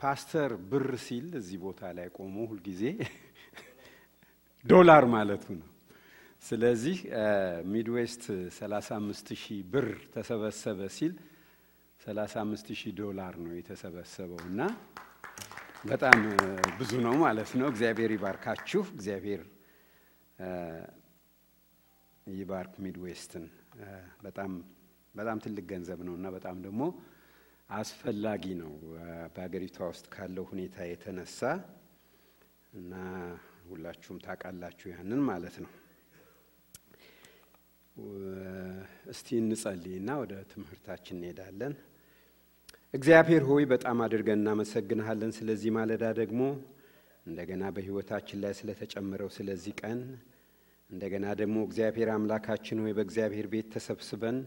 ፓስተር ብር ሲል እዚህ ቦታ ላይ ቆሞ ሁሉ ጊዜ ዶላር ማለቱ ነው። ስለዚህ ሚድዌስት 35000 ብር ተሰበሰበ ሲል 35000 ዶላር ነው የተሰበሰበውና በጣም ብዙ ነው ማለት ነው። እግዚአብሔር ይባርካችሁ። እግዚአብሔር ይባርክ ሚድዌስትን። በጣም ትልቅ ገንዘብ ነውና በጣም ደግሞ አስፈላጊ ነው በአገሪቷ ውስጥ ካለው ሁኔታ የተነሳ እና ሁላችሁም ታውቃላችሁ ያንን ማለት ነው። እስቲ እንጸልይና ወደ ትምህርታችን እንሄዳለን። እግዚአብሔር ሆይ በጣም አድርገን እናመሰግንሃለን ስለዚህ ማለዳ ደግሞ እንደገና በህይወታችን ላይ ስለተጨመረው ስለዚህ ቀን እንደገና ደግሞ እግዚአብሔር አምላካችን ሆይ በእግዚአብሔር ቤት ተሰብስበን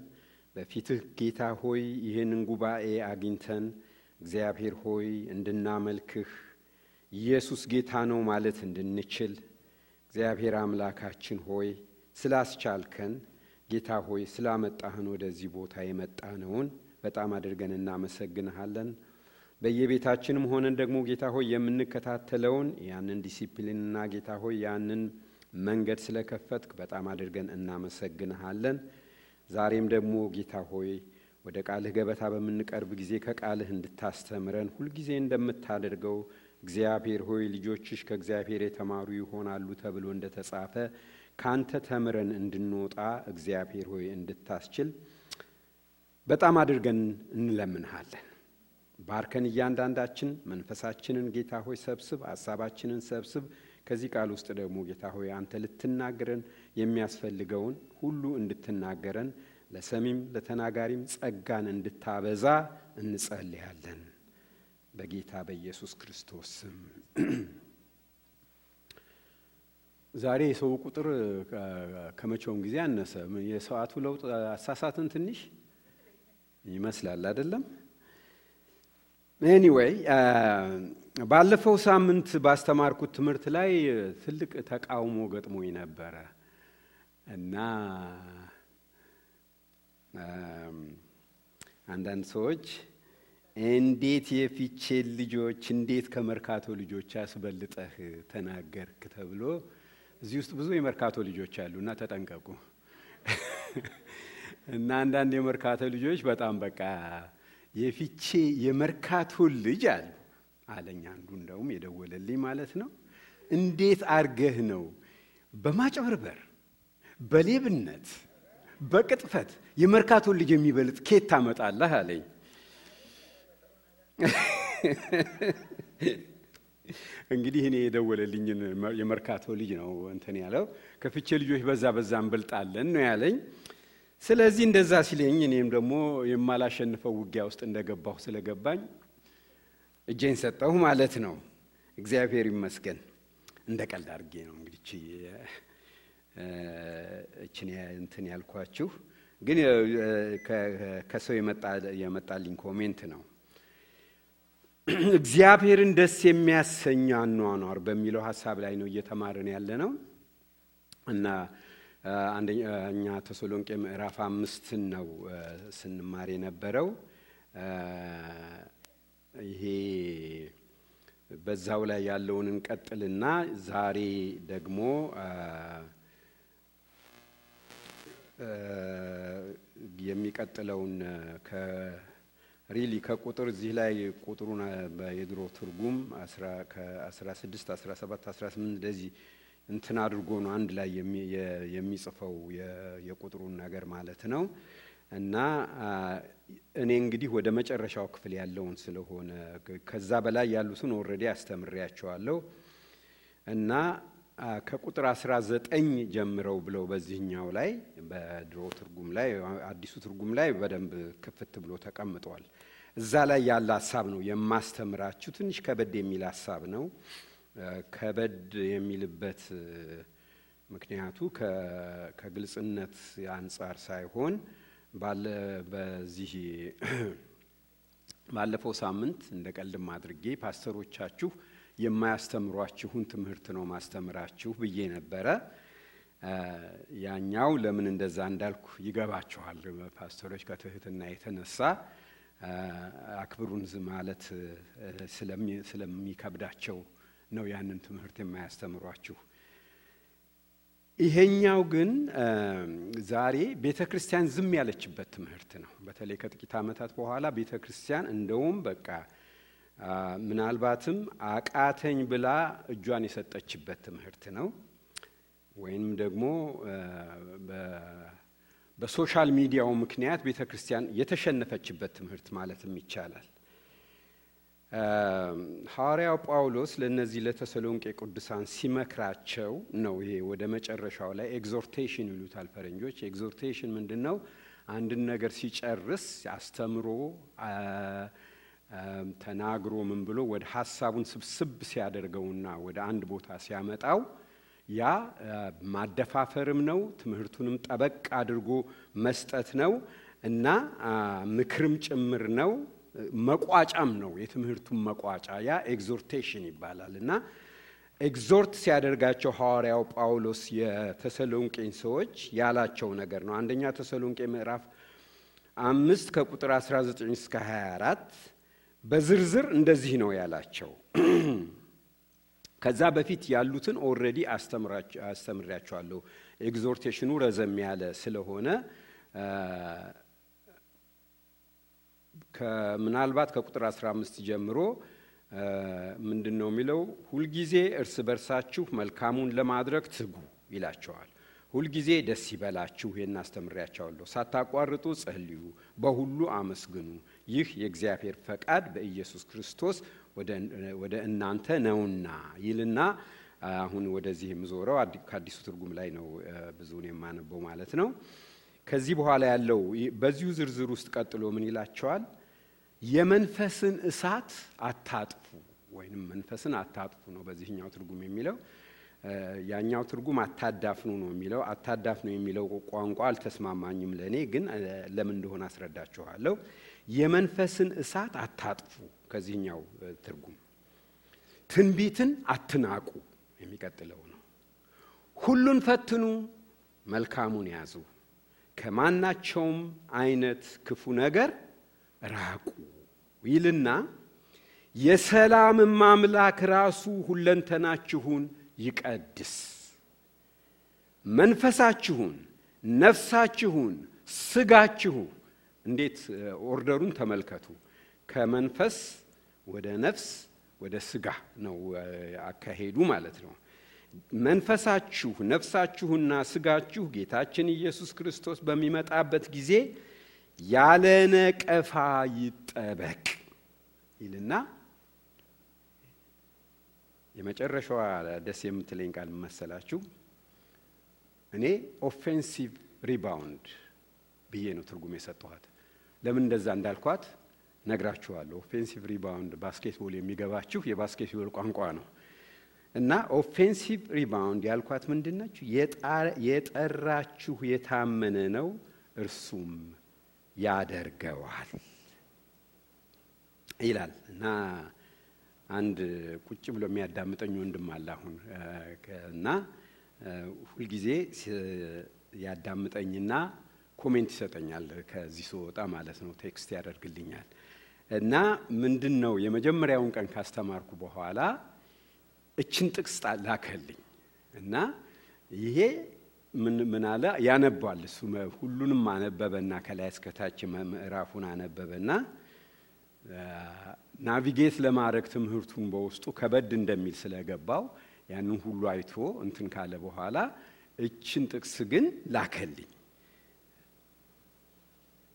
በፊትህ ጌታ ሆይ ይህንን ጉባኤ አግኝተን እግዚአብሔር ሆይ እንድናመልክህ ኢየሱስ ጌታ ነው ማለት እንድንችል እግዚአብሔር አምላካችን ሆይ ስላስቻልከን ጌታ ሆይ ስላመጣህን ወደዚህ ቦታ የመጣነውን በጣም አድርገን እናመሰግንሃለን። በየቤታችንም ሆነን ደግሞ ጌታ ሆይ የምንከታተለውን ያንን ዲሲፕሊንና ጌታ ሆይ ያንን መንገድ ስለከፈትክ በጣም አድርገን እናመሰግንሃለን። ዛሬም ደግሞ ጌታ ሆይ ወደ ቃልህ ገበታ በመንቀርብ ጊዜ ከቃልህ እንድታስተምረን ሁሉ ጊዜ እንደምታደርገው እግዚአብሔር ሆይ ልጆችሽ ከእግዚአብሔር የተማሩ ይሆናሉ ተብሎ እንደተጻፈ ካንተ ተምረን እንድንወጣ እግዚአብሔር ሆይ እንድታስችል በጣም አድርገን እንለምንሃለን። ባርከን እያንዳንዳችን መንፈሳችንን ጌታ ሆይ ሰብስብ፣ ሐሳባችንን ሰብስብ። ከዚህ ቃል ውስጥ ደግሞ ጌታ ሆይ አንተ ልትናገረን የሚያስፈልገውን ሁሉ እንድትናገረን ለሰሚም ለተናጋሪም ጸጋን እንድታበዛ እንጸልያለን በጌታ በኢየሱስ ክርስቶስ ስም። ዛሬ የሰው ቁጥር ከመቼውም ጊዜ አነሰ። የሰዓቱ ለውጥ አሳሳትን ትንሽ ይመስላል አይደለም? ኤኒዌይ ባለፈው ሳምንት ባስተማርኩት ትምህርት ላይ ትልቅ ተቃውሞ ገጥሞኝ ነበር እና አንዳንድ ሰዎች እንዴት የፊቼ ልጆች እንዴት ከመርካቶ ልጆች አስበልጠህ ተናገርክ ተብሎ እዚህ ውስጥ ብዙ የመርካቶ ልጆች አሉና ተጠንቀቁ። እና አንዳንድ የመርካቶ ልጆች በጣም በቃ የፊቼ የመርካቶ ልጅ አለኝ አንዱ እንደውም የደወለልኝ ማለት ነው። እንዴት አርገህ ነው በማጭበርበር በሌብነት በቅጥፈት የመርካቶ ልጅ የሚበልጥ ኬት ታመጣለህ አለኝ። እንግዲህ እኔ የደወለልኝ የመርካቶ ልጅ ነው እንትን ያለው ከፊቼ ልጆች በዛ እንበልጣለን ነው ያለኝ። ስለዚህ እንደዛ ሲለኝ እኔም ደግሞ የማላሸንፈው ውጊያ ውስጥ እንደገባሁ ስለገባኝ እጄን ሰጠሁ ማለት ነው። እግዚአብሔር ይመስገን። እንደቀልድ አድርጌ ነው እንግዲህ እቺን እንትን ያልኳችሁ፣ ግን ከሰው የመጣልኝ ኮሜንት ነው። እግዚአብሔርን ደስ የሚያሰኝ አኗኗር በሚለው ሐሳብ ላይ ነው እየተማረን ያለነው እና አንደኛ ተሰሎንቄ ምዕራፍ 5 ነው ስንማር የነበረው። ይሄ በዛው ላይ ያለውን እንቀጥልና ዛሬ ደግሞ የሚቀጥለውን ከቁጥር እዚህ ላይ ቁጥሩን በየድሮ ትርጉም 16 17 18 እንደዚህ እንትን አድርጎ ነው አንድ ላይ የሚጽፈው የቁጥሩን ነገር ማለት ነው። እና እኔ እንግዲህ ወደ መጨረሻው ክፍል ያለውን ስለሆነ ከዛ በላይ ያሉትን ኦሬዲ አስተምሬያቸዋለሁ እና ከቁጥር 19 ጀምረው ብለው በዚህኛው ላይ በድሮ ትርጉም ላይ አዲሱ ትርጉም ላይ በደንብ ክፍት ብሎ ተቀምጧል። እዛ ላይ ያለ ሐሳብ ነው የማስተምራችሁ። ትንሽ ከበድ የሚል ሐሳብ ነው። ከበድ የሚልበት ምክንያቱ ከግልጽነት አንፃር ሳይሆን በዚህ ባለፈው ሳምንት እንደቀልድም አድርጌ ፓስተሮቻችሁ የማያስተምሯችሁን ትምህርት ነው ማስተምራችሁ ብዬ ነበረ። ያኛው ለምን እንደዛ እንዳልኩ ይገባችኋል። ፓስተሮች ከትህትና የተነሳ አክብሩን ማለት ስለሚከብዳቸው ነው ያንን ትምህርት የማያስተምሯችሁ። ይሄኛው ግን ዛሬ ቤተክርስቲያን ዝም ያለችበት ትምህርት ነው። በተለይ ከጥቂት ዓመታት በኋላ ቤተክርስቲያን እንደውም በቃ ምናልባትም አቃተኝ ብላ እጇን የሰጠችበት ትምህርት ነው። ወይም ደግሞ በሶሻል ሚዲያው ምክንያት ቤተክርስቲያን የተሸነፈችበት ትምህርት ማለትም ይቻላል። ሐዋርያው ጳውሎስ ለነዚህ ለተሰሎንቄ ቅዱሳን ሲመክራቸው ነው። ይሄ ወደ መጨረሻው ላይ ኤግዞርቴሽን ይሉታል ፈረንጆች። ኤግዞርቴሽን ምንድነው? አንድን ነገር ሲጨርስ አስተምሮ ተናግሮ ምን ብሎ ወደ ሐሳቡን ስብስብ ሲያደርገውና ወደ አንድ ቦታ ሲያመጣው ያ ማደፋፈርም ነው፣ ትምህርቱንም ጠበቅ አድርጎ መስጠት ነው እና ምክርም ጭምር ነው፣ መቋጫም ነው። የትምህርቱን መቋጫ ያ ኤግዞርቴሽን ይባላል። እና ኤግዞርት ሲያደርጋቸው ሐዋርያው ጳውሎስ የተሰሎንቄን ሰዎች ያላቸው ነገር ነው። አንደኛ ተሰሎንቄ ምዕራፍ 5 ከቁጥር 19 እስከ 24 በዝርዝር እንደዚህ ነው ያላቸው። ከዛ በፊት ያሉትን ኦሬዲ አስተምራቸዋለሁ። ኤግዞርቴሽኑ ረዘም ያለ ስለሆነ ምናልባት ከቁጥር 15 ጀምሮ ምንድነው የሚለው? ሁልጊዜ እርስ በርሳችሁ መልካሙን ለማድረግ ትጉ ይላቸዋል። ሁልጊዜ ደስ ይበላችሁ፣ ይሄን አስተምራቸዋለሁ። ሳታቋርጡ ጸልዩ፣ በሁሉ አመስግኑ፣ ይህ የእግዚአብሔር ፈቃድ በኢየሱስ ክርስቶስ ወደ እናንተ ነውና ይልና አሁን ወደዚህ የምዞረው ከአዲሱ ትርጉም ላይ ነው ብዙውን የማነበው ማለት ነው። ከዚህ በኋላ ያለው በዚሁ ዝርዝር ውስጥ ቀጥሎ ምን ይላቸዋል? የመንፈስን እሳት አታጥፉ ወይንም መንፈስን አታጥፉ ነው በዚህኛው ትርጉም የሚለው። ያኛው ትርጉም አታዳፍኑ ነው የሚለው። አታዳፍኑ የሚለው ቋንቋ አልተስማማኝም ለኔ፣ ግን ለምን እንደሆነ አስረዳችኋለሁ። የመንፈስን እሳት አታጥፉ ከዚህኛው ትርጉም። ትንቢትን አትናቁ የሚቀጥለው ነው። ሁሉን ፈትኑ፣ መልካሙን ያዙ፣ ከማናቸውም አይነት ክፉ ነገር ራቁ ይልና የሰላም አምላክ ራሱ ሁለንተናችሁን ይቀድስ፣ መንፈሳችሁን፣ ነፍሳችሁን፣ ስጋችሁ። እንዴት ኦርደሩን ተመልከቱ። ከመንፈስ ወደ ነፍስ ወደ ስጋ ነው አካሄዱ ማለት ነው። መንፈሳችሁ፣ ነፍሳችሁና ስጋችሁ ጌታችን ኢየሱስ ክርስቶስ በሚመጣበት ጊዜ ያለ ነቀፋ ይጠበቅ ይልና የመጨረሻዋ ደስ የምትለኝ ቃል መሰላችሁ? እኔ ኦፌንሲቭ ሪባውንድ ብዬ ነው ትርጉም የሰጠኋት። ለምን እንደዛ እንዳልኳት ነግራችኋለሁ። ኦፌንሲቭ ሪባውንድ ባስኬትቦል የሚገባችሁ የባስኬትቦል ቋንቋ ነው። እና ኦፌንሲቭ ሪባውንድ ያልኳት ምንድነች? የጠራችሁ የታመነ ነው፣ እርሱም ያደርገዋል ይላል። እና አንድ ቁጭ ብሎ የሚያዳምጠኝ ወንድም አለ አሁን እና ሁልጊዜ ያዳምጠኝና ኮሜንት ይሰጠኛል ከዚህ ስወጣ ማለት ነው፣ ቴክስት ያደርግልኛል። እና ምንድነው የመጀመሪያውን ቀን ካስተማርኩ በኋላ እችን ጥቅስ ላከልኝ እና ይሄ ምን አለ ያነባል። እሱ ሁሉንም አነበበና ከላይ እስከ ታች ምዕራፉን አነበበና ናቪጌት ለማድረግ ትምህርቱን በውስጡ ከበድ እንደሚል ስለገባው ያንን ሁሉ አይቶ እንትን ካለ በኋላ እችን ጥቅስ ግን ላከልኝ።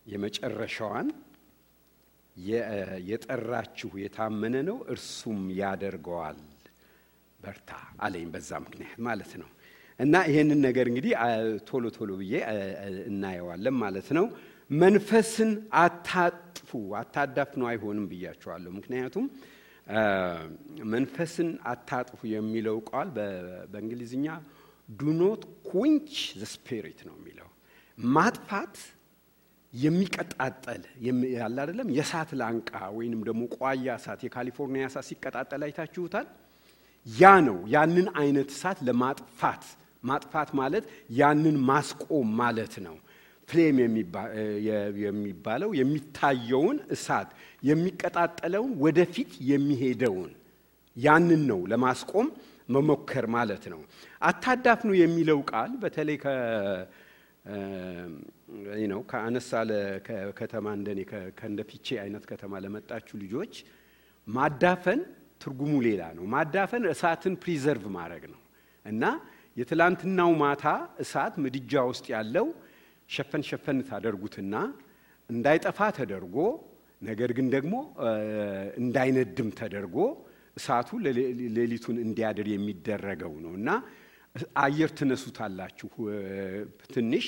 የመጨረሻዋን የጠራችሁ የታመነ ነው፣ እርሱም ያደርገዋል በርታ አለኝ። በዛ ምክንያት ማለት ነው። እና ይሄንን ነገር እንግዲህ ቶሎ ቶሎ ብዬ እናየዋለን ማለት ነው። መንፈስን አታጥፉ፣ አታዳፍኑ አይሆንም ብያቸዋለሁ። ምክንያቱም መንፈስን አታጥፉ የሚለው ቃል በእንግሊዝኛ do not quench the spirit ነው የሚለው። ማጥፋት የሚቀጣጠል ያለ አይደለም። የእሳት ላንቃ ወይንም ደግሞ ቋያ እሳት፣ የካሊፎርኒያ እሳት ሲቀጣጠል አይታችሁታል። ያ ነው። ያንን አይነት እሳት ለማጥፋት ማጥፋት ማለት ያንን ማስቆም ማለት ነው። ፍሌም የሚባለው የሚታየውን እሳት የሚቀጣጠለውን ወደፊት የሚሄደውን ያንን ነው ለማስቆም መሞከር ማለት ነው። አታዳፍኑ የሚለው ቃል በተለይ ከአነሳለ ከተማ እንደኔ ከእንደፊቼ አይነት ከተማ ለመጣችሁ ልጆች ማዳፈን ትርጉሙ ሌላ ነው። ማዳፈን እሳትን ፕሪዘርቭ ማድረግ ነው እና የትላንትናው ማታ እሳት ምድጃ ውስጥ ያለው ሸፈን ታደርጉትና እንዳይጠፋ ተደርጎ ነገር ግን ደግሞ እንዳይነድም ተደርጎ እሳቱ ሌሊቱን እንዲያድር የሚደረገው ነውና አየር ትነሱታላችሁ ትንሽ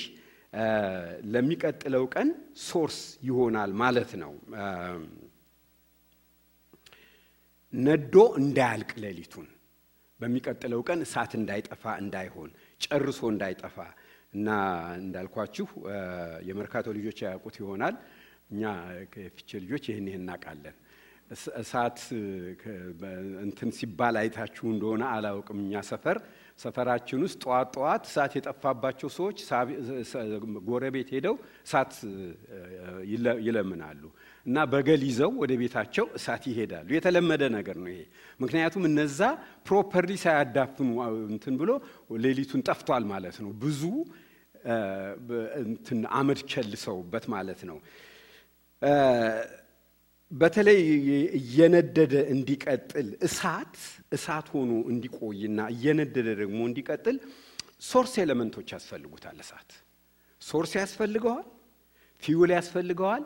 ለሚቀጥለው ቀን ሶርስ ይሆናል ማለት ነው። ነዶ እንዳያልቅ ሌሊቱን በሚቀጥለው ቀን እሳት እንዳይጠፋ እንዳይሆን ጨርሶ እንዳይጠፋ እና እንዳልኳችሁ የመርካቶ ልጆች ያውቁት ይሆናል። እኛ ከፍቼ ልጆች ይሄን እናቃለን። እሳት እንትን ሲባል አይታችሁ እንደሆነ አላውቅም። እኛ ሰፈራችን ውስጥ ጧት እሳት የጠፋባቸው ሰዎች ጎረቤት ሄደው እሳት ይለምናሉ እና በገል ይዘው ወደ ቤታቸው እሳት ይሄዳሉ። የተለመደ ነገር ነው ይሄ። ምክንያቱም እነዛ ፕሮፐርሊ ሳያዳፍኑ እንትን ብሎ ሌሊቱን ጠፍቷል ማለት ነው። ብዙ እንትን አመድ ቸልሰውበት ማለት ነው። በተለይ እየነደደ እንዲቀጥል እሳት ሆኖ እንዲቆይና እየነደደ ደግሞ እንዲቀጥል ሶርስ ኤሌመንቶች ያስፈልጉታል። እሳት ሶርስ ያስፈልገዋል፣ ፊውል ያስፈልገዋል፣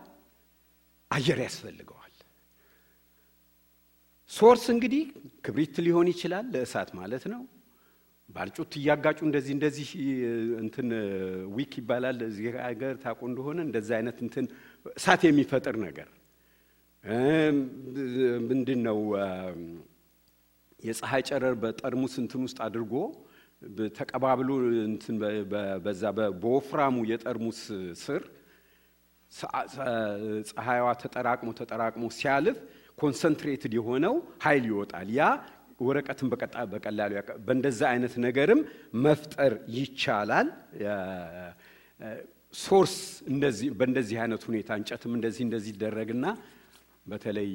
አየር ያስፈልገዋል። ሶርስ እንግዲህ ክብሪት ሊሆን ይችላል ለእሳት ማለት ነው። ባልጩት ያጋጩ እንደዚህ እንትን ዊክ ይባላል እዚህ ሀገር ታቆ እንደሆነ እንደዛ አይነት እንትን እሳት የሚፈጥር ነገር ምንድነው? የፀሐይ ጨረር በጠርሙስ እንትን ውስጥ አድርጎ ተቀባብሎ እንትን በዛ በወፍራሙ የጠርሙስ ስር ፀሐይዋ ተጠራቅሞ ሲያልፍ ኮንሰንትሬትድ የሆነው ኃይል ይወጣል። ያ ወረቀትን በቀላሉ በእንደዛ አይነት ነገርም መፍጠር ይቻላል። ሶርስ እንደዚህ በእንደዚህ አይነት ሁኔታ እንጨትም እንደዚህ ይደረግና በተለይ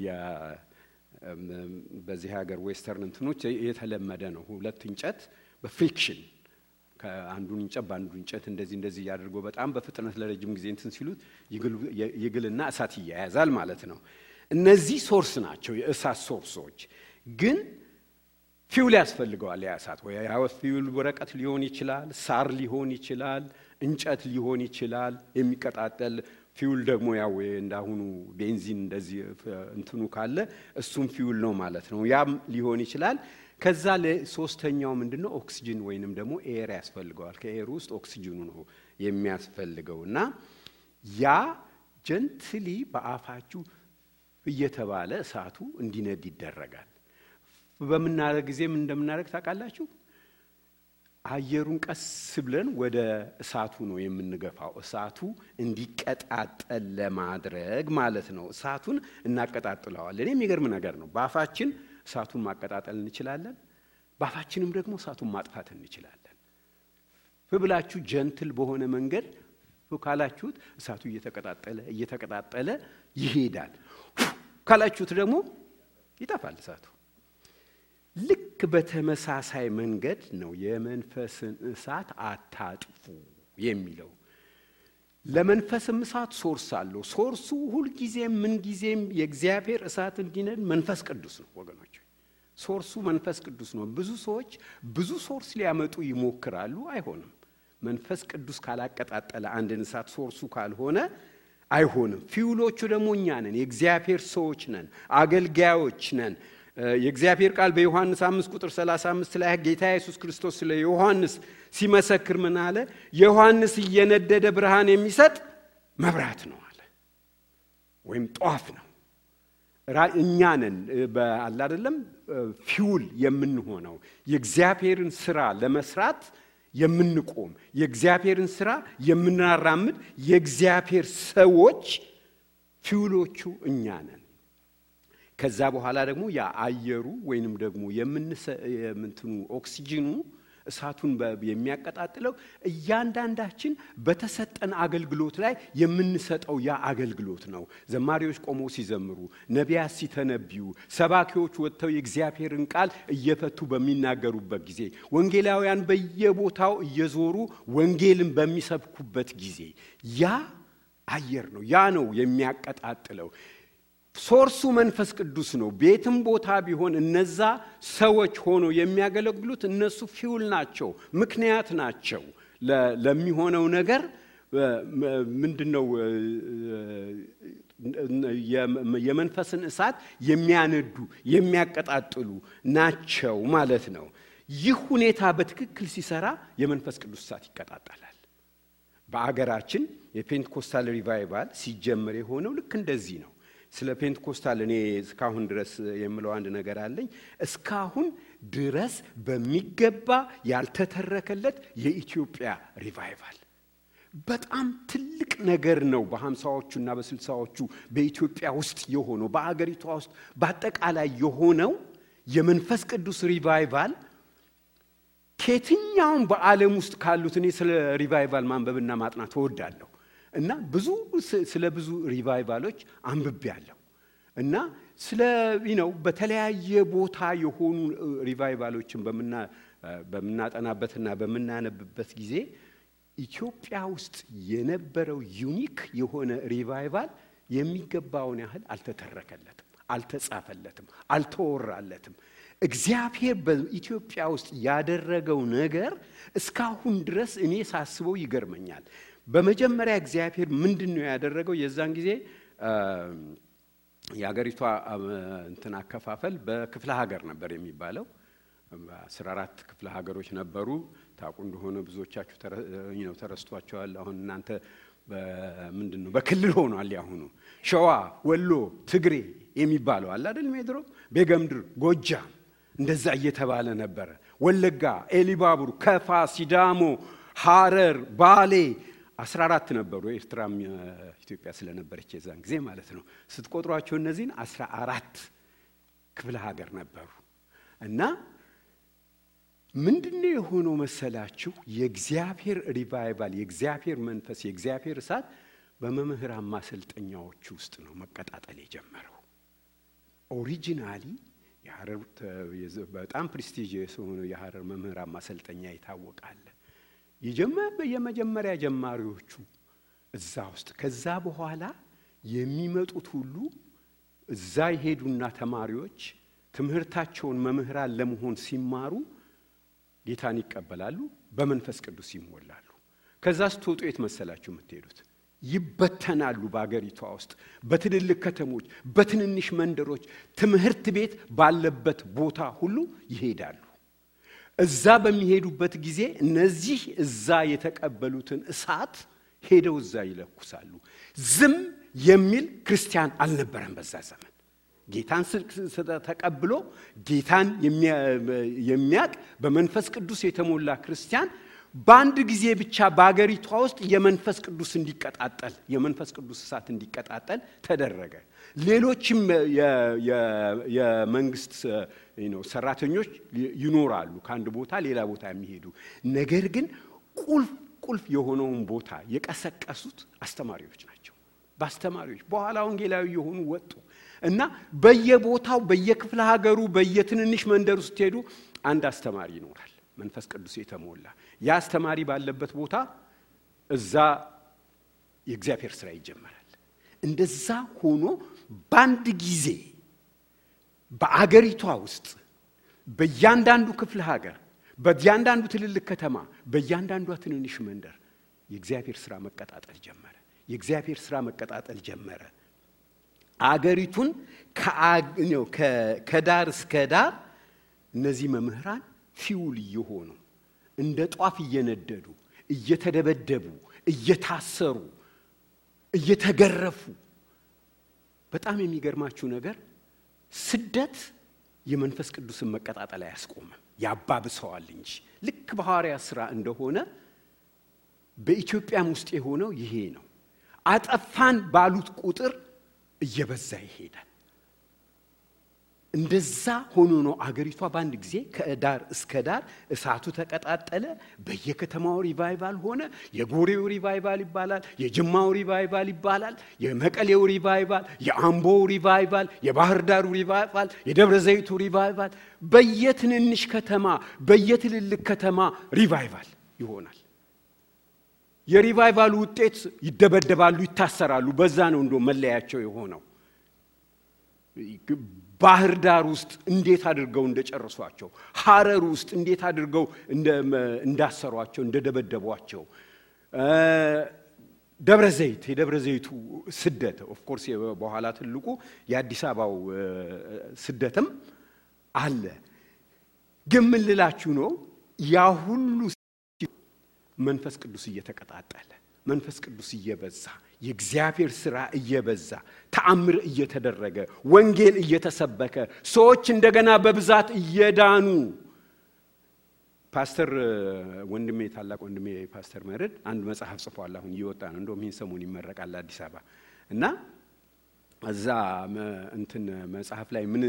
በዚህ ሀገር ዌስተርን እንትኖች የተለመደ ነው። ሁለት እንጨት በፍሪክሽን ከአንዱን እንጨት በአንዱ እንጨት እንደዚህ ያድርጎ በጣም በፍጥነት ለረጅም ጊዜ እንትን ሲሉት ይግልና እሳት ይያያዛል ማለት ነው። እነዚህ ሶርስ ናቸው የእሳት ሶርሶች። ግን ፊውል ያስፈልገዋል። ያ እሳት ወይ ፊውል ወረቀት ሊሆን ይችላል፣ ሳር ሊሆን ይችላል፣ እንጨት ሊሆን ይችላል። የሚቀጣጠል ፊውል ደግሞ ያው እንዳሁኑ ቤንዚን እንደዚህ እንትኑ ካለ እሱም ፊውል ነው ማለት ነው። ያም ሊሆን ይችላል። ከዛ ለሶስተኛው ምንድነው? ኦክሲጅን ወይንም ደግሞ ኤር ያስፈልገዋል። ከኤር ውስጥ ኦክሲጅኑ ነው የሚያስፈልገውና ያ ጀንትሊ በአፋችሁ እየተባለ እሳቱ እንዲነድ ይደረጋል። በመናረግ ጊዜ ምን እንደምናረግ ታውቃላችሁ? አየሩን ቀስ ብለን ወደ እሳቱ ነው የምንገፋው። እሳቱ እንዲቀጣጠል ለማድረግ ማለት ነው። እሳቱን እናቀጣጥለዋለን። የሚገርም ነገር ነው። በአፋችን እሳቱን ማቀጣጠል እንችላለን። በአፋችንም ደግሞ እሳቱን ማጥፋት እንችላለን። ብላችሁ ጀንትል በሆነ መንገድ ካላችሁት እሳቱ እየተቀጣጠለ ይሄዳል። ካላችሁት ደግሞ ይጠፋል እሳቱ። ልክ በተመሳሳይ መንገድ ነው የመንፈስን እሳት አታጥፉ የሚለው። ለመንፈስም እሳት ሶርስ አለው። ሶርሱ ሁልጊዜም ምንጊዜም የእግዚአብሔር እሳት እንዲነድ መንፈስ ቅዱስ ነው ወገኖች። ሶርሱ መንፈስ ቅዱስ ነው። ብዙ ሰዎች ብዙ ሶርስ ሊያመጡ ይሞክራሉ፣ አይሆንም። መንፈስ ቅዱስ ካላቀጣጠለ አንድን እሳት ሶርሱ ካልሆነ አይሆንም። ፊውሎቹ ደግሞ እኛ ነን፣ የእግዚአብሔር ሰዎች ነን፣ አገልጋዮች ነን። የእግዚአብሔር ቃል በዮሐንስ 5:35 ላይ ጌታ ኢየሱስ ክርስቶስ ስለ ዮሐንስ ሲመሰክር ምን አለ? ዮሐንስ እየነደደ ብርሃን የሚሰጥ መብራት ነው አለ፣ ወይም ጧፍ ነው። እኛ ነን በአላ አይደለም ፊውል የምንሆነው የእግዚአብሔርን ስራ ለመስራት የምንቆም የእግዚአብሔርን ስራ የምናራምድ የእግዚአብሔር ሰዎች ፊውሎቹ እኛ ነን። ከዛ በኋላ ደግሞ ያ አየሩ ወይንም ደግሞ የምንትኑ ኦክሲጅኑ እሳቱን የሚያቀጣጥለው እያንዳንዳችን በተሰጠን አገልግሎት ላይ የምንሰጠው ያ አገልግሎት ነው። ዘማሪዎች ቆመው ሲዘምሩ፣ ነቢያት ሲተነብዩ፣ ሰባኪዎች ወጥተው የእግዚአብሔርን ቃል እየፈቱ በሚናገሩበት ጊዜ፣ ወንጌላውያን በየቦታው እየዞሩ ወንጌልን በሚሰብኩበት ጊዜ ያ አየር ነው። ያ ነው የሚያቀጣጥለው። ሶርሱ መንፈስ ቅዱስ ነው። ቤትም ቦታ ቢሆን እነዛ ሰዎች ሆኖ የሚያገለግሉት እነሱ ፊውል ናቸው፣ ምክንያት ናቸው ለሚሆነው ነገር። ምንድነው የመንፈስን እሳት የሚያነዱ የሚያቀጣጥሉ ናቸው ማለት ነው። ይህ ሁኔታ በትክክል ሲሰራ የመንፈስ ቅዱስ እሳት ይቀጣጣላል። በአገራችን የፔንቴኮስታል ሪቫይቫል ሲጀመር የሆነው ልክ እንደዚህ ነው። ስለ ፔንቴኮስታል እኔ እስካሁን ድረስ የምለው አንድ ነገር አለኝ። እስካሁን ድረስ በሚገባ ያልተተረከለት የኢትዮጵያ ሪቫይቫል በጣም ትልቅ ነገር ነው። በ50ዎቹና በ60ዎቹ በኢትዮጵያ ውስጥ የሆነው በአገሪቷ ውስጥ በአጠቃላይ የሆነው የመንፈስ ቅዱስ ሪቫይቫል ከየትኛውም በዓለም ውስጥ ካሉት እኔ ስለ ሪቫይቫል ማንበብና ማጥናት እወዳለሁ እና ስለ ብዙ ሪቫይቫሎች አንብቤያለሁ እና ስለ በተለያየ ቦታ የሆኑ ሪቫይቫሎችን በመናጠናበትና በመናነብበት ጊዜ ኢትዮጵያ ውስጥ የነበረው ዩኒክ የሆነ ሪቫይቫል የሚገባውን ያህል አልተተረከለትም፣ አልተጻፈለትም፣ አልተወራለትም። እግዚአብሔር በኢትዮጵያ ውስጥ ያደረገው ነገር እስካሁን ድረስ እኔ ሳስበው ይገርመኛል። በመጀመሪያ እግዚአብሔር ምንድነው ያደረገው? የዛን ጊዜ የሀገሪቷ እንትን አከፋፈል በክፍለ ሀገር ነበር የሚባለው። 14 ክፍለ ሀገሮች ነበሩ። ታውቁ እንደሆነ ብዙዎቻችሁ ተረስቷቸዋል። አሁን እናንተ ምንድነው በክልል ሆኗል። ያሁኑ ሸዋ፣ ወሎ፣ ትግሬ የሚባለው አለ አይደል? ሜድሮ፣ ቤገምድር፣ ጎጃም እንደዛ እየተባለ ነበር። ወለጋ፣ ኤሊባቡር፣ ከፋ፣ ሲዳሞ፣ ሐረር፣ ባሌ 14 ነበሩ። ኤርትራም ኢትዮጵያ ስለነበረች የዛን ጊዜ ማለት ነው። ስትቆጥሯቸው እነዚህን 14 ክፍለ ሀገር ነበሩ እና ምንድነው የሆነው መሰላችሁ? የእግዚአብሔር ሪቫይቫል፣ የእግዚአብሔር መንፈስ፣ የእግዚአብሔር እሳት በመምህራን ማሰልጠኛዎች ውስጥ ነው መቀጣጠል የጀመረው። ኦሪጂናሊ የሐረር በጣም ፕሬስቲጂየስ ሆኖ የሐረር መምህራን ማሰልጠኛ ይታወቃል። የመጀመሪያ ጀማሪዎቹ እዛ ውስጥ፣ ከዛ በኋላ የሚመጡት ሁሉ እዛ ይሄዱና ተማሪዎች ትምህርታቸውን መምህራን ለመሆን ሲማሩ ጌታን ይቀበላሉ፣ በመንፈስ ቅዱስ ይሞላሉ። ከዛ ስትወጡ የት መሰላችሁ የምትሄዱት? ይበተናሉ። በአገሪቷ ውስጥ በትልልቅ ከተሞች፣ በትንንሽ መንደሮች፣ ትምህርት ቤት ባለበት ቦታ ሁሉ ይሄዳሉ። እዛ በሚሄዱበት ጊዜ እነዚህ እዛ የተቀበሉትን እሳት ሄደው እዛ ይለኩሳሉ። ዝም የሚል ክርስቲያን አልነበረም በዛ ዘመን። ጌታን ተቀብሎ ጌታን የሚያቅ በመንፈስ ቅዱስ የተሞላ ክርስቲያን በአንድ ጊዜ ብቻ በአገሪቷ ውስጥ የመንፈስ ቅዱስ እንዲቀጣጠል፣ የመንፈስ ቅዱስ እሳት እንዲቀጣጠል ተደረገ። ሌሎችም የመንግስት ሰራተኞች ይኖራሉ ከአንድ ቦታ ሌላ ቦታ የሚሄዱ። ነገር ግን ቁልፍ የሆነውን ቦታ የቀሰቀሱት አስተማሪዎች ናቸው። በአስተማሪዎች በኋላ ወንጌላዊ የሆኑ ወጡ እና በየቦታው በየክፍለ ሀገሩ በየትንንሽ መንደር ውስጥ ሄዱ አንድ አስተማሪ ይኖራል መንፈስ ቅዱስ የተሞላ። ያ አስተማሪ ባለበት ቦታ እዛ የእግዚአብሔር ሥራ ይጀመራል። እንደዛ ሆኖ በአንድ ጊዜ በአገሪቷ ውስጥ በእያንዳንዱ ክፍለ ሀገር፣ በእያንዳንዱ ትልልቅ ከተማ፣ በእያንዳንዱ ትንንሽ መንደር የእግዚአብሔር ሥራ መቀጣጠል ጀመረ። የእግዚአብሔር ሥራ መቀጣጠል ጀመረ። አገሪቱን ከዳር እስከ ዳር እነዚህ መምህራን ፊውል እየሆኑ እንደ ጧፍ እየነደዱ፣ እየተደበደቡ፣ እየታሰሩ፣ እየተገረፉ። በጣም የሚገርማችሁ ነገር ስደት የመንፈስ ቅዱስን መቀጣጠል አያስቆምም፣ ያባብሰዋል እንጂ። ልክ በሐዋርያት ሥራ እንደሆነ በኢትዮጵያም ውስጥ የሆነው ይሄ ነው። አጠፋን ባሉት ቁጥር እየበዛ ይሄዳል። እንደዛ ሆኖ ነው አገሪቷ በአንድ ጊዜ ከዳር እስከ ዳር እሳቱ ተቀጣጠለ። በየከተማው ሪቫይቫል ሆነ። የጎሬው ሪቫይቫል ይባላል፣ የጅማው ሪቫይቫል ይባላል፣ የመቀሌው ሪቫይቫል፣ የአምቦው ሪቫይቫል፣ የባህር ዳሩ ሪቫይቫል፣ የደብረ ዘይቱ ሪቫይቫል፣ በየትንንሽ ከተማ በየትልልቅ ከተማ ሪቫይቫል ይሆናል። የሪቫይቫሉ ውጤት ይደበደባሉ፣ ይታሰራሉ። በዛ ነው እንዶ መለያቸው የሆነው። ባህር ዳር ውስጥ እንዴት አድርገው እንደጨረሷቸው፣ ሐረር ውስጥ እንዴት አድርገው እንዳሰሯቸው፣ እንደደበደቧቸው፣ ደብረ ዘይት የደብረ ዘይቱ ስደት ኦፍ ኮርስ በኋላ ትልቁ የአዲስ አበባው ስደትም አለ። ግን ምን ልላችሁ ነው ያ ሁሉ መንፈስ ቅዱስ እየተቀጣጠለ መንፈስ ቅዱስ እየበዛ የእግዚአብሔር ሥራ እየበዛ ተአምር እየተደረገ ወንጌል እየተሰበከ ሰዎች እንደገና በብዛት እየዳኑ ፓስተር ወንድሜ ታላቅ ወንድሜ ፓስተር መረድ አንድ መጽሐፍ ጽፏል። አሁን እየወጣ ነው። እንደውም ይህን ሰሞን ይመረቃል አዲስ አበባ እና እዛ እንትን መጽሐፍ ላይ ምን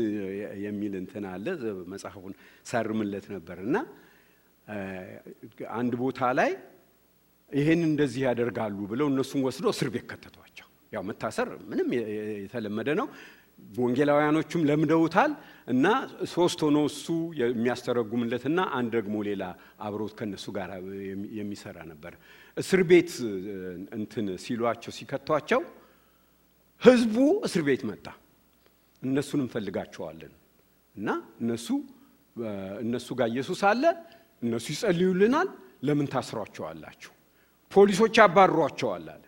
የሚል እንትን አለ። መጽሐፉን ሳርምለት ነበርና አንድ ቦታ ላይ ይሄን እንደዚህ ያደርጋሉ ብለው እነሱን ወስዶ እስር ቤት ከተቷቸው። ያው መታሰር ምንም የተለመደ ነው። ወንጌላውያኖቹም ለምደውታል እና ሶስት ሆኖ እሱ የሚያስተረጉምለትና አንድ ደግሞ ሌላ አብሮት ከነሱ ጋር የሚሰራ ነበር። እስር ቤት እንትን ሲሏቸው ሲከቷቸው ህዝቡ እስር ቤት መጣ። እነሱንም ፈልጋቸዋለን እና እነሱ ጋር ኢየሱስ አለ፣ እነሱ ይጸልዩልናል፣ ለምን ታስሯቸዋላችሁ? ፖሊሶች አባሯቸዋል አለ።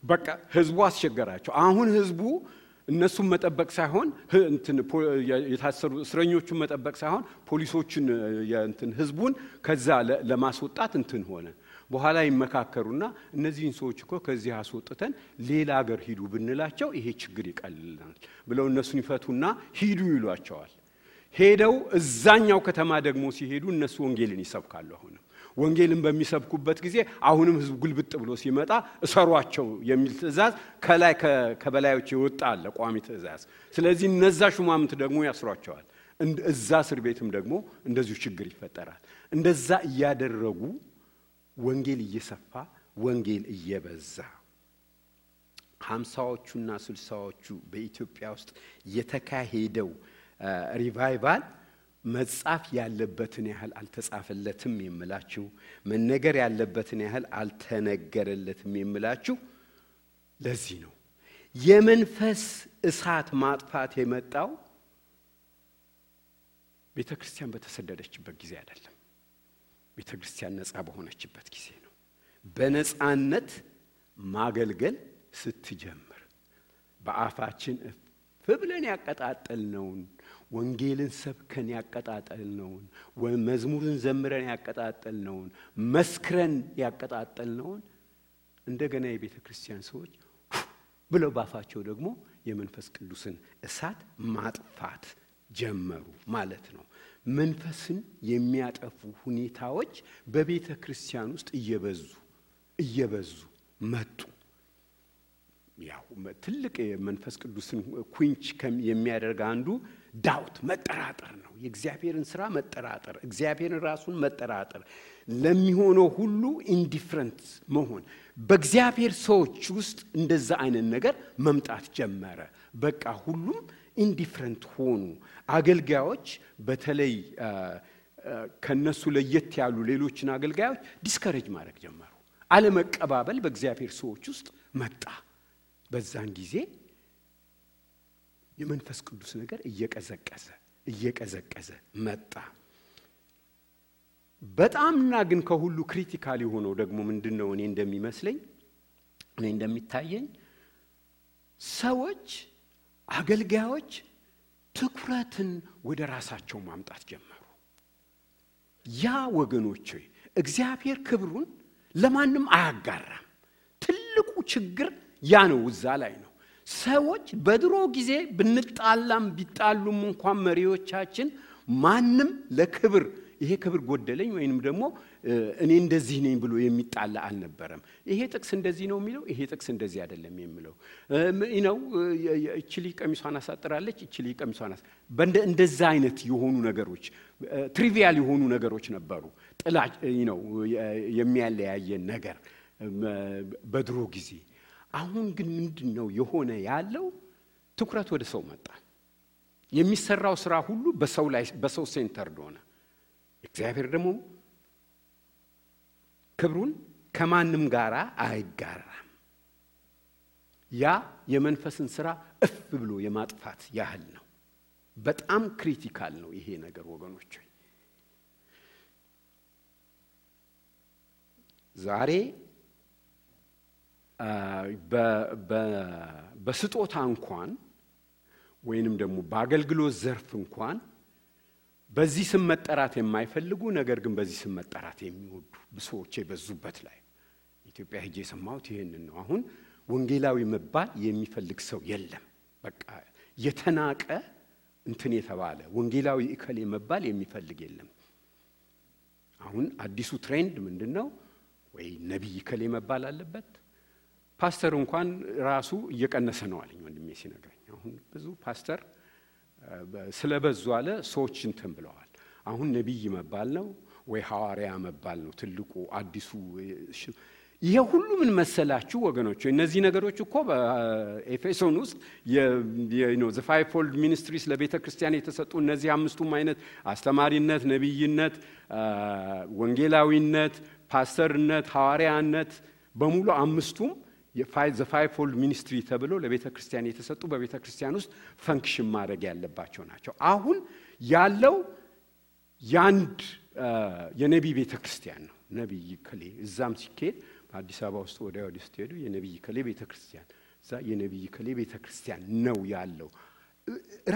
በቃ ህዝቡ አስቸገራቸው። አሁን ህዝቡ እነሱን መጠበቅ ሳይሆን የታሰሩ እስረኞቹን መጠበቅ ሳይሆን ፖሊሶችን ህዝቡን ከዛ ለማስወጣት ሆነ። በኋላ ይመካከሩና እነዚህን ሰዎች እኮ ከዚህ አስወጥተን ሌላ ሀገር ሂዱ ብንላቸው ይሄ ችግር ይቀልልናል ብለው እነሱን ይፈቱና ሂዱ ይሏቸዋል። ሄደው እዛኛው ከተማ ደግሞ ሲሄዱ እነሱ ወንጌልን ይሰብካሉ። አሁንም ወንጌልን በሚሰብኩበት ጊዜ አሁንም ህዝቡ ግልብጥ ብሎ ሲመጣ እሰሯቸው የሚል ትእዛዝ ከላይ ከበላዮች ይወጣ አለ፣ ቋሚ ትእዛዝ። ስለዚህ እነዛ ሹማምንት ደግሞ ያስሯቸዋል። እዛ እስር ቤትም ደግሞ እንደዚሁ ችግር ይፈጠራል። እንደዛ እያደረጉ ወንጌል እየሰፋ ወንጌል እየበዛ 50ዎቹና 60ዎቹ በኢትዮጵያ ውስጥ የተካሄደው ሪቫይቫል መጻፍ ያለበትን ያህል አልተጻፈለትም የምላችሁ፣ መነገር ያለበትን ያህል አልተነገረለትም የምላችሁ ለዚህ ነው። የመንፈስ እሳት ማጥፋት የመጣው ቤተክርስቲያን በተሰደደችበት ጊዜ አይደለም። ቤተክርስቲያን ነፃ በሆነችበት ጊዜ ነው። በነፃነት ማገልገል ስትጀምር በአፋችን ብለን ያቀጣጠልነውን ወንጌልን ሰብከን ያቀጣጠልነውን መዝሙርን ዘምረን ያቀጣጠልነውን መስክረን ያቀጣጠልነውን እንደገና የቤተክርስቲያን ሰዎች ብለው ባፋቸው ደግሞ የመንፈስ ቅዱስን እሳት ማጥፋት ጀመሩ ማለት ነው። መንፈስን የሚያጠፉ ሁኔታዎች በቤተክርስቲያን ውስጥ እየበዙ መጡ። ያው ትልቅ የመንፈስ ቅዱስን ኩንች የሚያደርግ አንዱ ዳውት መጠራጠር ነው። የእግዚአብሔርን ሥራ መጠራጠር፣ እግዚአብሔርን ራሱን መጠራጠር፣ ለሚሆነው ሁሉ ኢንዲፈረንት መሆን። በእግዚአብሔር ሰዎች ውስጥ እንደዛ አይነት ነገር መምጣት ጀመረ። በቃ ሁሉም ኢንዲፈረንት ሆኑ። አገልጋዮች በተለይ ከነሱ ለየት ያሉ ሌሎችን አገልጋዮች ዲስከሬጅ ማድረግ ጀመሩ። አለመቀባበል በእግዚአብሔር ሰዎች ውስጥ መጣ። በዛን ጊዜ የመንፈስ ቅዱስ ነገር እየቀዘቀዘ መጣ። በጣምና ግን ከሁሉ ክሪቲካል የሆነው ደግሞ ምንድነው? እኔ እንደሚታየኝ ሰዎች አገልጋዮች ትኩረትን ወደ ራሳቸው ማምጣት ጀመሩ። ያ ወገኖቼ እግዚአብሔር ክብሩን ለማንም አያጋራም። ትልቁ ችግር ያ ነው። እዛ ላይ ነው። ሰዎች በድሮ ጊዜ ብንጣላም ቢጣሉም እንኳን መሪዎቻችን ማንም ለክብር ይሄ ክብር ጎደለኝ ወይንም ደግሞ እኔ እንደዚህ ነኝ ብሎ የሚጣላ አልነበረም። ይሄ ጥቅስ እንደዚህ ነው የሚለው፣ ይሄ ጥቅስ እንደዚህ አይደለም የሚለው እቺ ቀሚሷን አሳጥራለች፣ እቺ ቀሚሷን እንደዛ አይነት የሆኑ ነገሮች ትሪቪያል የሆኑ ነገሮች ነበሩ። ጥላቻ የሚያለያየን ነገር በድሮ ጊዜ። አሁን ግን ምንድነው የሆነ ያለው? ትኩረት ወደ ሰው መጣ። የሚሰራው ስራ ሁሉ በሰው ሴንተር ሆነ። እግዚአብሔር ደግሞ ክብሩን ከማንም ጋር አይጋራም። ያ የመንፈስን ስራ እፍ ብሎ የማጥፋት ያህል ነው። በጣም ክሪቲካል ነው ይሄ ነገር ወገኖች። ዛሬ በስጦታ እንኳን ወይንም ደግሞ በአገልግሎት ዘርፍ እንኳን በዚህ ስም መጠራት የማይፈልጉ ነገር ግን በዚህ ስም መጠራት የሚወዱ ብዙዎች የበዙበት ላይ ኢትዮጵያ ሄጄ ሰማሁት ይሄንን ነው። አሁን ወንጌላዊ መባል የሚፈልግ ሰው የለም። በቃ የተናቀ እንትን የተባለ ወንጌላዊ እከሌ መባል የሚፈልግ የለም። አሁን አዲሱ ትሬንድ ምንድነው? ወይ ነብይ እከሌ መባል አለበት። ፓስተር እንኳን ራሱ እየቀነሰ ነው አለኝ ወንድሜ ሲነግረኝ። አሁን ብዙ ፓስተር ስለበዙ አለ ሰዎች እንትን ብለዋል። አሁን ነብይ መባል ነው ወይ ሐዋርያ መባል ነው ትልቁ አዲሱ። ይሄ ሁሉ ምን መሰላችሁ ወገኖች? እነዚህ ነገሮች እኮ በኤፌሶን ውስጥ the fivefold ministries ለቤተ ክርስቲያን የተሰጡ እነዚህ አምስቱም አይነት አስተማሪነት፣ ነብይነት፣ ወንጌላዊነት፣ ፓስተርነት፣ ሐዋርያነት በሙሉ አምስቱም the fivefold ministry ተብሎ ለቤተ ክርስቲያን የተሰጡ በቤተ ክርስቲያን ውስጥ ፈንክሽን ማድረግ ያለባቸው ናቸው። አሁን ያለው ያንድ የነብይ ቤተ ክርስቲያን ነው። ነብይ ከሌ እዛም ሲኬድ በአዲስ አበባ ውስጥ ወደ ስትሄዱ የነብይ ከሌ ቤተ ክርስቲያን እዛ የነብይ ከሌ ቤተ ክርስቲያን ነው ያለው።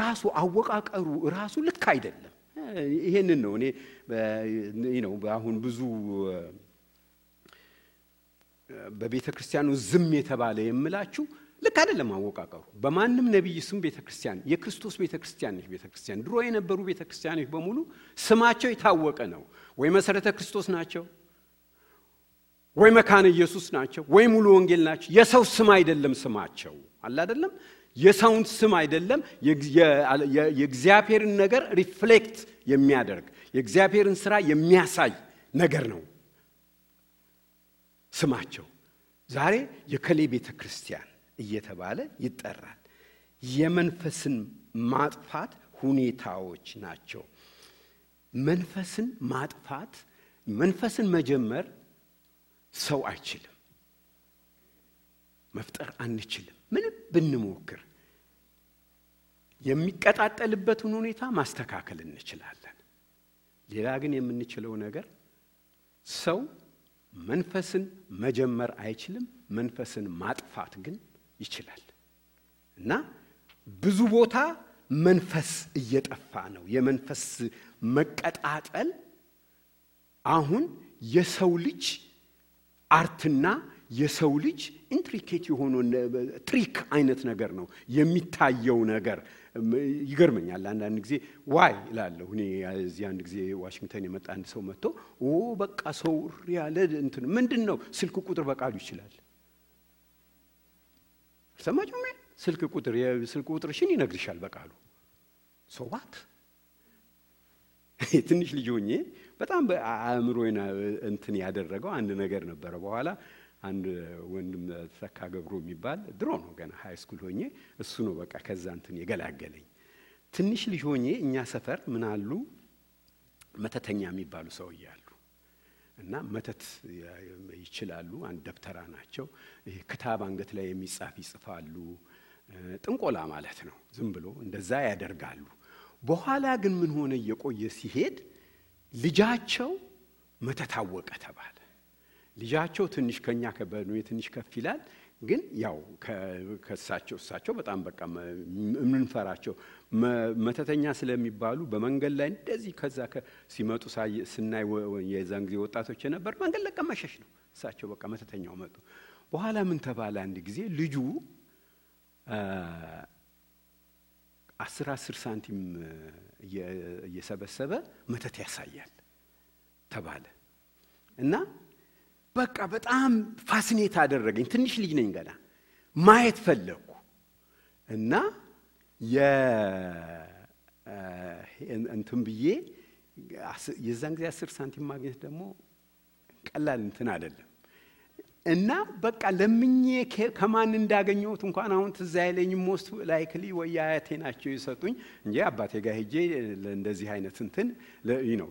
ራሱ አወቃቀሩ ራሱ ልክ አይደለም። ይሄንን ነው እኔ አሁን ብዙ በቤተ ክርስቲያኑ ዝም የተባለ የምላችሁ ልክ አይደለም አወቃቀሩ። በማንም ነብይ ስም ቤተ ክርስቲያን የክርስቶስ ቤተ ክርስቲያን ነች። ቤተ ክርስቲያን ድሮ የነበሩ ቤተ ክርስቲያኖች በሙሉ ስማቸው የታወቀ ነው። ወይ መሰረተ ክርስቶስ ናቸው፣ ወይ መካነ ኢየሱስ ናቸው፣ ወይ ሙሉ ወንጌል ናቸው። የሰው ስም አይደለም ስማቸው አለ አይደለም። የሰውን ስም አይደለም። የእግዚአብሔርን ነገር ሪፍሌክት የሚያደርግ የእግዚአብሔርን ስራ የሚያሳይ ነገር ነው ስማቸው። ዛሬ የከሌ ቤተ ክርስቲያን እየተባለ ይጠራል። የመንፈስን ማጥፋት ሁኔታዎች ናቸው። መንፈስን ማጥፋት መንፈስን መጀመር ሰው አይችልም፣ መፍጠር አንችልም ምንም ብንሞክር። የሚቀጣጠልበትን ሁኔታ ማስተካከል እንችላለን። ሌላ ግን የምንችለው ነገር ሰው መንፈስን መጀመር አይችልም፣ መንፈስን ማጥፋት ግን ይችላል። እና ብዙ ቦታ መንፈስ እየጠፋ ነው። የመንፈስ መቀጣጠል አሁን የሰው ልጅ አርትና የሰው ልጅ ኢንትሪኬት የሆነ ትሪክ አይነት ነገር ነው የሚታየው ነገር። ይገርመኛል አንዳንድ ጊዜ ዋይ እላለሁ እኔ እዚህ አንድ ጊዜ ዋሽንግተን የመጣ አንድ ሰው መጥቶ በቃ ሰው ያለ እንትን ምንድነው ስልክ ቁጥር በቃሉ ይችላል። ሰማችሁ? ስልክ ቁጥርሽን ይነግርሻል በቃሉ። ሶ ዋት ትንሽ ልጅ ሆኜ በጣም በአእምሮዬና እንትን ያደረገው አንድ ነገር ነበረ። በኋላ አንድ ወንድም ተካ ገብሩ የሚባል ድሮ ነው ገና ሃይ ስኩል ሆኜ እሱ ነው በቃ ከዛ እንትን የገላገለኝ። ትንሽ ልጅ ሆኜ እኛ ሰፈር ምን አሉ መተተኛ የሚባሉ ሰው ይያሉ እና መተት ይችላሉ። አንድ ደብተራ ናቸው። ይሄ ክታብ አንገት ላይ የሚጻፍ ይጽፋሉ። ጥንቆላ ማለት ነው። ዝም ብሎ እንደዛ ያደርጋሉ። በኋላ ግን ምን ሆነ እየቆየ ሲሄድ ልጃቸው መተታወቀ ተባለ። ልጃቸው ትንሽ ከኛ ከበኑ ትንሽ ከፍ ይላል። ግን ያው ከሳቸው በጣም በቃ ምንፈራቸው መተተኛ ስለሚባሉ በመንገድ ላይ እንደዚህ ከዛ ሲመጡ ስናይ የዛን ጊዜ ወጣቶች ነበር መንገድ ለቀ መሸሽ ነው። እሳቸው በቃ መተተኛው መጡ። በኋላ ምን ተባለ አንድ ጊዜ ልጁ 10 ሳንቲም እየሰበሰበ መተት ያሳያል። ተባለ እና በቃ በጣም ፋሲኔት አደረገኝ። ትንሽ ልጅ ነኝ ገና ማየት ፈለኩ እና እንትን ብዬ የዛን ጊዜ 10 ሳንቲም ማግኘት ደግሞ ቀላል እንትን አይደለም እና በቃ ለምኜ ከማን እንዳገኘሁት እንኳን አሁን ትዝ አይለኝም። ሞስት ላይክሊ ወይ አያቴ ናቸው የሰጡኝ እንጂ አባቴ ጋር ሄጄ ለእንደዚህ አይነት እንትን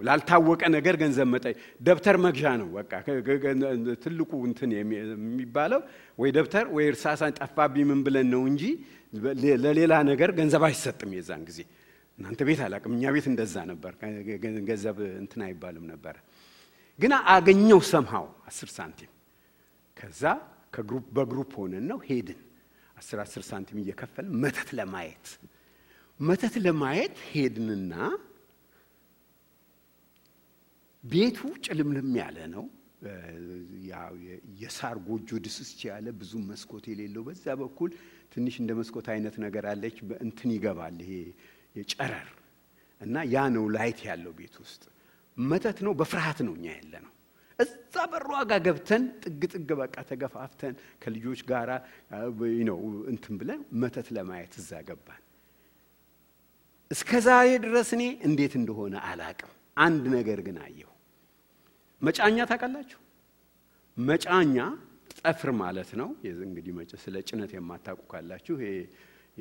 ላልታወቀ ነገር ገንዘብ መጣይ ደብተር መግዣ ነው በቃ ትልቁ እንትን የሚባለው ወይ ደብተር ወይ እርሳስ ጠፋብኝ ምን ብለን ነው እንጂ ለሌላ ነገር ገንዘብ አይሰጥም የዛን ጊዜ። እናንተ ቤት አላቅም፣ እኛ ቤት እንደዛ ነበር። ገንዘብ እንትን አይባልም ነበር። ግን አገኘው ሰምሃው 10 ሳንቲም። ከዛ በግሩፕ ሆነን ነው ሄድን 10 ሳንቲም እየከፈልን መተት ለማየት ሄድንና ቤቱ ጭልምልም ያለ ነው። የሳር ጎጆ ድስስ ያለ ብዙ መስኮት የሌለው በዛ በኩል ትንሽ እንደ መስኮት አይነት ነገር አለች። እንትን ይገባል ይሄ የጨረር እና ያ ነው ላይት ያለው ቤት ውስጥ መተት ነው። በፍርሃት ነው እኛ ያለነው። እዛ በሩ ጋር ገብተን ጥግ በቃ ተገፋፍተን ከልጆች ጋራ እንትን ብለን መተት ለማየት እዛ ገባን። እስከዛሬ ድረስ እኔ እንዴት እንደሆነ አላቅም። አንድ ነገር ግን አየሁ። መጫኛ ታውቃላችሁ? መጫኛ ጠፍር ማለት ነው። እንግዲህ ስለ ጭነት የማታውቁ ካላችሁ ይሄ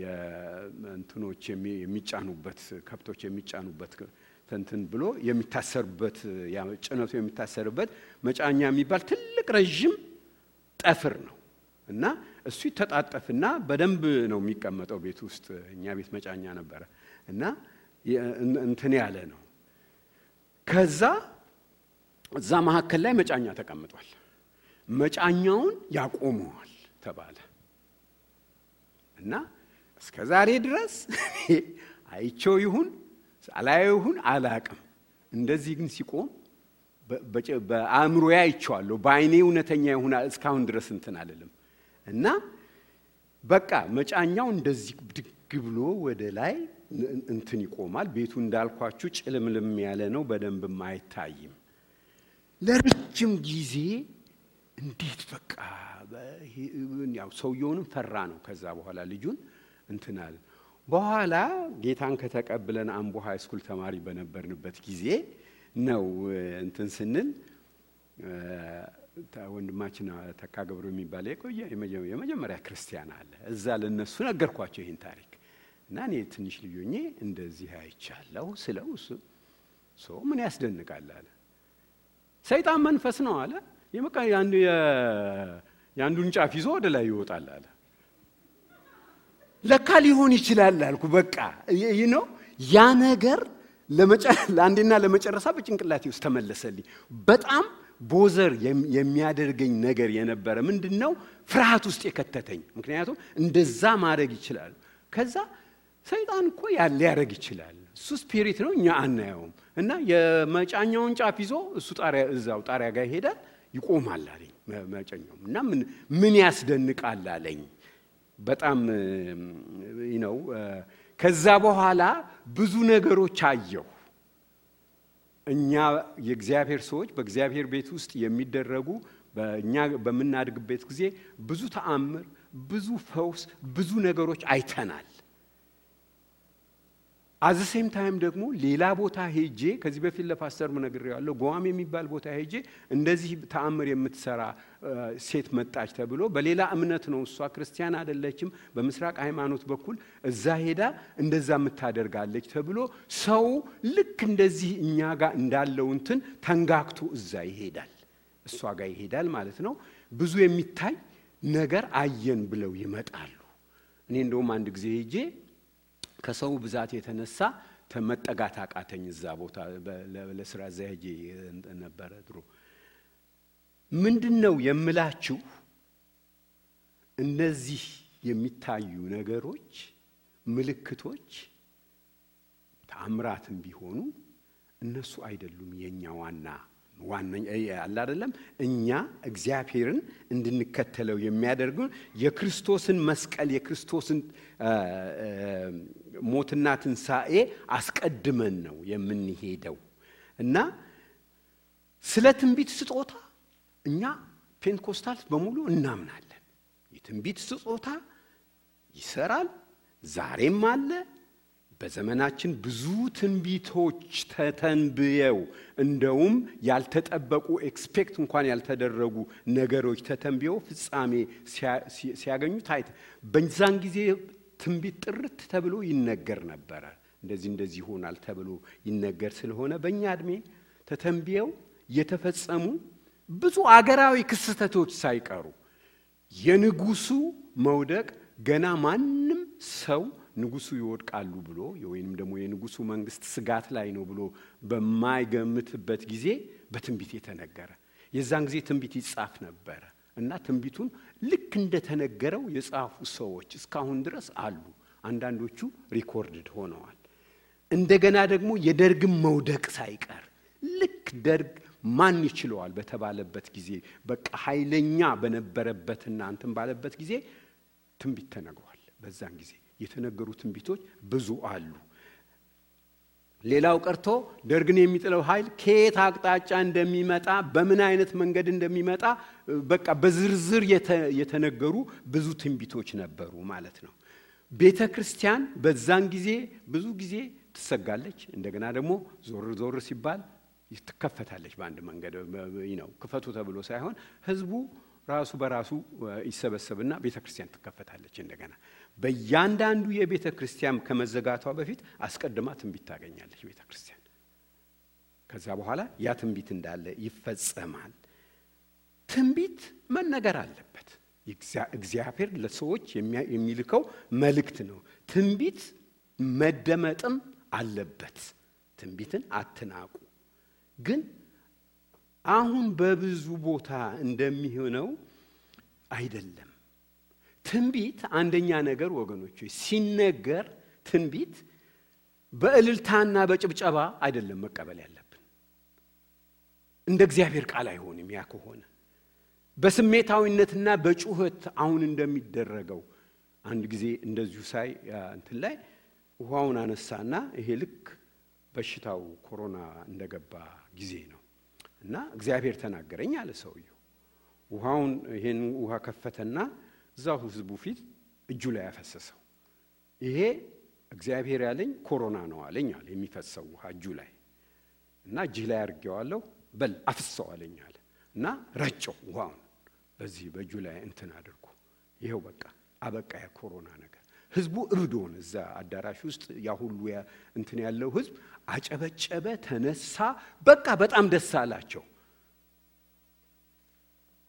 የእንትኖች የሚጫኑበት ከብቶች የሚጫኑበት እንትን ብሎ የሚታሰርበት ጭነቱ የሚታሰርበት መጫኛ የሚባል ትልቅ ረጅም ጠፍር ነው እና እሱ ይተጣጠፍና በደንብ ነው የሚቀመጠው ቤት ውስጥ። እኛ ቤት መጫኛ ነበረ እና እንትን ያለ ነው። ከዛ እዛ መካከል ላይ መጫኛ ተቀምጧል። መጫኛውን ያቆመዋል ተባለ እና እስከዛሬ ድረስ አይቼው ይሁን አላየው ይሁን አላቅም። እንደዚህ ግን ሲቆም በአእምሮዬ አይቼዋለሁ። በአይኔ እውነተኛ ይሁን እስካሁን ድረስ እንትን አለለም እና በቃ መጫኛው እንደዚህ ድግ ብሎ ወደ ላይ እንትን ይቆማል። ቤቱ እንዳልኳችሁ ጭልምልም ያለ ነው፣ በደንብም አይታይም። ለረጅም ጊዜ እንዴት በቃ ያው ሰውየውንም ፈራ ነው። ከዛ በኋላ ልጁን እንትን አለ። በኋላ ጌታን ከተቀበለን አምቦ ሃይ ስኩል ተማሪ በነበርንበት ጊዜ ነው እንትን ስንል ወንድማችን ተካገብሩ የሚባል የመጀመሪያ ክርስቲያን አለ። እዛ ለነሱ ነገርኳቸው ይሄን ታሪክ እና እኔ ትንሽ ልጆኜ እንደዚህ አይቻለሁ ስለው ሰው ምን ያስደንቃል አለ። ሰይጣን መንፈስ ነው አለ። ያንዱን ጫፍ ይዞ ወደ ላይ ይወጣል አለ። ለካ ሊሆን ይችላል አልኩ። በቃ ያ ነገር ለአንዴና ለመጨረሻ በጭንቅላቴ ውስጥ ተመለሰልኝ። በጣም ቦዘር የሚያደርገኝ ነገር የነበረ ምንድነው ፍርሃት ውስጥ የከተተኝ። ምክንያቱም እንደዛ ማድረግ ይችላል። ከዛ ሰይጣን እኮ ሊያደርግ ይችላል፣ እሱ ስፒሪት ነው፣ እኛ አናየውም። እና የመጫኛውን ጫፍ ይዞ እሱ እዛው ጣሪያ ጋር ይሄዳል፣ ይቆማል አለኝ መጫኛው። እና ምን ያስደንቃል አለኝ። በጣም ከዛ በኋላ ብዙ ነገሮች አየሁ። እኛ የእግዚአብሔር ሰዎች በእግዚአብሔር ቤት ውስጥ የሚደረጉ በእኛ በመናድግበት ጊዜ ብዙ ተአምር፣ ብዙ ፈውስ፣ ብዙ ነገሮች አይተናል። አዘ ሴም ታይም ደግሞ ሌላ ቦታ ሄጄ ከዚህ በፊት ለፓስተር ነግሬዋለሁ። ጓም የሚባል ቦታ ሄጄ እንደዚህ ተአምር የምትሰራ ሴት መጣች ተብሎ በሌላ እምነት ነው፣ እሷ ክርስቲያን አይደለችም፣ በምስራቅ ሃይማኖት በኩል እዛ ሄዳ እንደዛ የምታደርጋለች ተብሎ ሰው ልክ እንደዚህ እኛ ጋር እንዳለው እንትን ተንጋክቶ እዛ ይሄዳል፣ እሷ ጋር ይሄዳል ማለት ነው። ብዙ የሚታይ ነገር አየን ብለው ይመጣሉ። እኔ እንደውም አንድ ጊዜ ሄጄ ከሰው ብዛት የተነሳ ተመጠጋት አቃተኝ። እዛ ቦታ ለስራ ዘሄጄ ነበር ድሮ። ምንድነው የምላችሁ እነዚህ የሚታዩ ነገሮች ምልክቶች ተአምራትም ቢሆኑ እነሱ አይደሉም የኛ ዋና አለ አይደለም። እኛ እግዚአብሔርን እንድንከተለው የሚያደርጉን የክርስቶስን መስቀል የክርስቶስን ሞትና ትንሣኤ አስቀድመን ነው የምንሄደው። እና ስለ ትንቢት ስጦታ እኛ ፔንቴኮስታልስ በሙሉ እናምናለን። የትንቢት ስጦታ ይሰራል፣ ዛሬም አለ። በዘመናችን ብዙ ትንቢቶች ተተንብየው እንደውም ያልተጠበቁ ኤክስፔክት እንኳን ያልተደረጉ ነገሮች ተተንብየው ፍጻሜ ሲያገኙ ታይተ በዛን ጊዜ ትንቢት ጥርት ተብሎ ይነገር ነበር። እንደዚህ ይሆናል ተብሎ ይነገር ስለሆነ በእኛ እድሜ ተተንብየው የተፈጸሙ ብዙ አገራዊ ክስተቶች ሳይቀሩ የንጉሱ መውደቅ ገና ማንም ሰው ንጉሱ ይወድቃሉ ብሎ ወይንም ደግሞ የንጉሱ መንግስት ስጋት ላይ ነው ብሎ በማይገምትበት ጊዜ በትንቢት የተነገረ የዛን ጊዜ ትንቢት ይጻፍ ነበር እና ትንቢቱን ልክ እንደተነገረው የጻፉ ሰዎች እስካሁን ድረስ አሉ። አንዳንዶቹ ሪኮርድድ ሆነዋል። እንደገና ደግሞ የደርግም መውደቅ ሳይቀር ልክ ደርግ ማን ይችላል በተባለበት ጊዜ በቃ ኃይለኛ በነበረበትና እንትን ባለበት ጊዜ ትንቢት ተነግሯል። በዛን ጊዜ የተነገሩ ትንቢቶች ብዙ አሉ። ሌላው ቀርቶ ደርግን የሚጥለው ኃይል ከየት አቅጣጫ እንደሚመጣ በምን አይነት መንገድ እንደሚመጣ በቃ በዝርዝር የተነገሩ ብዙ ትንቢቶች ነበሩ ማለት ነው። ቤተክርስቲያን በዛን ጊዜ ብዙ ጊዜ ትሰጋለች። እንደገና ደግሞ ዞር ሲባል ትከፈታለች። በአንድ መንገድ ክፈቱ ተብሎ ሳይሆን ህዝቡ ራሱ በራሱ ይሰበሰብና ቤተክርስቲያን ትከፈታለች። እንደገና በእያንዳንዱ የቤተክርስቲያን ከመዘጋቷ በፊት አስቀድማ ትንቢት ታገኛለች ቤተክርስቲያን። ከዛ በኋላ ያ ትንቢት እንዳለ ይፈጸማል። ትንቢት መነገር አለበት። እግዚአብሔር ለሰዎች የሚልከው መልእክት ነው። ትንቢት መደመጥም አለበት። ትንቢትን አትናቁ። ግን አሁን በብዙ ቦታ እንደሚሆነው አይደለም። ትንቢት አንደኛ ነገር ወገኖች ሲነገር ትንቢት በእልልታና በጭብጨባ አይደለም መቀበል ያለብን። እንደ እግዚአብሔር ቃል አይሆንም። ያ ከሆነ በስሜታዊነትና በጩኸት አሁን እንደሚደረገው አንድ ጊዜ እንደዚሁ ሳይ እንትን ላይ ውሃውን አነሳና ይሄ ልክ በሽታው ኮሮና እንደገባ ጊዜ ነው እና እግዚአብሔር ተናገረኝ አለ ሰውየው። ውሃውን ይሄን ውሃ ከፈተና እዛው ህዝቡ ፊት እጁ ላይ ያፈሰሰው። ይሄ እግዚአብሔር ያለኝ ኮሮና ነው አለኝ አለ። የሚፈሰው ውሃ እጁ ላይ እና እጅ ላይ አርጌዋለሁ በል አፍሰው አለኝ አለ እና ረጨው ውሃውን በዚህ በእጁ ላይ እንትን አድርጎ ይሄው በቃ አበቃ ያ ኮሮና ነገር። ህዝቡ እብዶን እዛ አዳራሽ ውስጥ ያ ሁሉ እንትን ያለው ህዝብ አጨበጨበ፣ ተነሳ፣ በቃ በጣም ደስ አላቸው።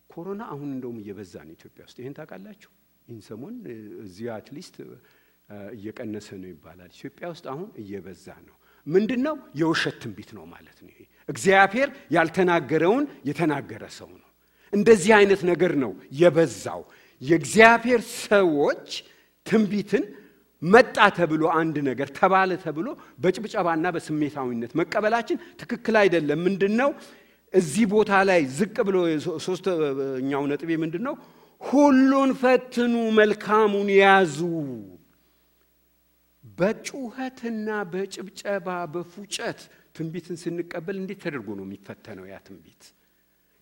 ኮሮና አሁን እንደውም እየበዛ ነው ኢትዮጵያ ውስጥ። ይሄን ታውቃላችሁ? ይህን ሰሞን እዚህ አትሊስት እየቀነሰ ነው ይባላል። ኢትዮጵያ ውስጥ አሁን እየበዛ ነው። ምንድነው? የውሸት ትንቢት ነው ማለት ነው። ይሄ እግዚአብሔር ያልተናገረውን የተናገረ ሰው ነው። እንደዚህ አይነት ነገር ነው የበዛው። የእግዚአብሔር ሰዎች ትንቢትን መጣ ተብሎ አንድ ነገር ተባለ ተብሎ በጭብጨባና በስሜታዊነት መቀበላችን ትክክል አይደለም። ምንድነው? እዚህ ቦታ ላይ ዝቅ ብሎ ሶስተኛው ነጥቤ ምንድነው? ሁሉን ፈትኑ፣ መልካሙን ያዙ። በጩኸትና በጭብጨባ በፉጨት ትንቢትን ስንቀበል እንዴት ተደርጎ ነው የሚፈተነው ያ ትንቢት?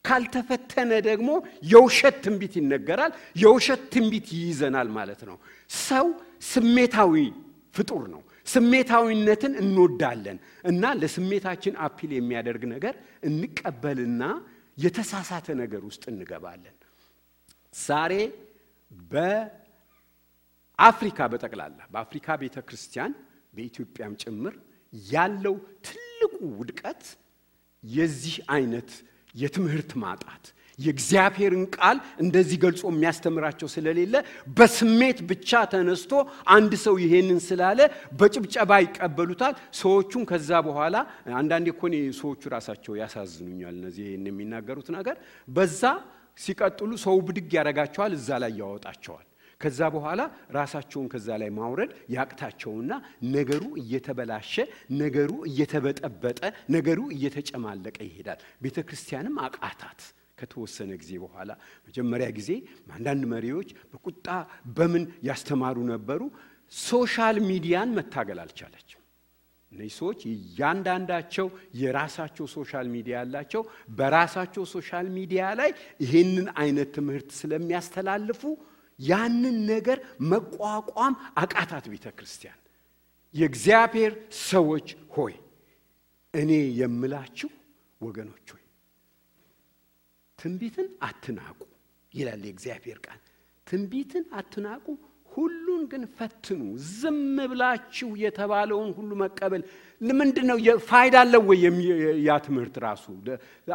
ካልተፈተነ ደግሞ የውሸት ትንቢት ይነገራል። የውሸት ትንቢት ይይዘናል ማለት ነው። ሰው ስሜታዊ ፍጡር ነው። ስሜታዊነትን እንወዳለን እና ለስሜታችን አፒል የሚያደርግ ነገር እንቀበልና የተሳሳተ ነገር ውስጥ እንገባለን። ዛሬ በአፍሪካ በጠቅላላ በአፍሪካ ቤተክርስቲያን በኢትዮጵያም ጭምር ያለው ትልቁ ውድቀት የዚህ አይነት የትምህርት ማጣት፣ የእግዚአብሔርን ቃል እንደዚህ ገልጾ የሚያስተምራቸው ስለሌለ በስሜት ብቻ ተነስቶ አንድ ሰው ይሄንን ስላለ በጭብጨባ ይቀበሉታል። ሰዎቹን ከዛ በኋላ አንዳንዴ እኮ ሰዎቹ ራሳቸው ያሳዝኑኛል። እነዚህ ይሄን የሚናገሩት ነገር በዛ ሲቀጥሉ ሰው ብድግ ያረጋቸዋል፣ እዛ ላይ ያወጣቸዋል። ከዛ በኋላ ራሳቸውን ከዛ ላይ ማውረድ ያቅታቸውና ነገሩ እየተበላሸ፣ ነገሩ እየተበጠበጠ፣ ነገሩ እየተጨማለቀ ይሄዳል። ቤተክርስቲያንም አቃታት። ከተወሰነ ጊዜ በኋላ መጀመሪያ ጊዜ አንዳንድ መሪዎች በቁጣ በምን ያስተማሩ ነበሩ። ሶሻል ሚዲያን መታገል አልቻለችም። እነዚህ ሰዎች ያንዳንዳቸው የራሳቸው ሶሻል ሚዲያ ያላቸው በራሳቸው ሶሻል ሚዲያ ላይ ይሄንን አይነት ትምህርት ስለሚያስተላልፉ ያንን ነገር መቋቋም አቃታት ቤተክርስቲያን። የእግዚአብሔር ሰዎች ሆይ እኔ የምላችሁ ወገኖች ሆይ ትንቢትን አትናቁ ይላል የእግዚአብሔር ቃል። ትንቢትን አትናቁ፣ ሁሉን ግን ፈትኑ። ዝም ብላችሁ የተባለውን ሁሉ መቀበል ለምንድነው? ፋይዳ አለው ወይ ያ ትምህርት ራሱ?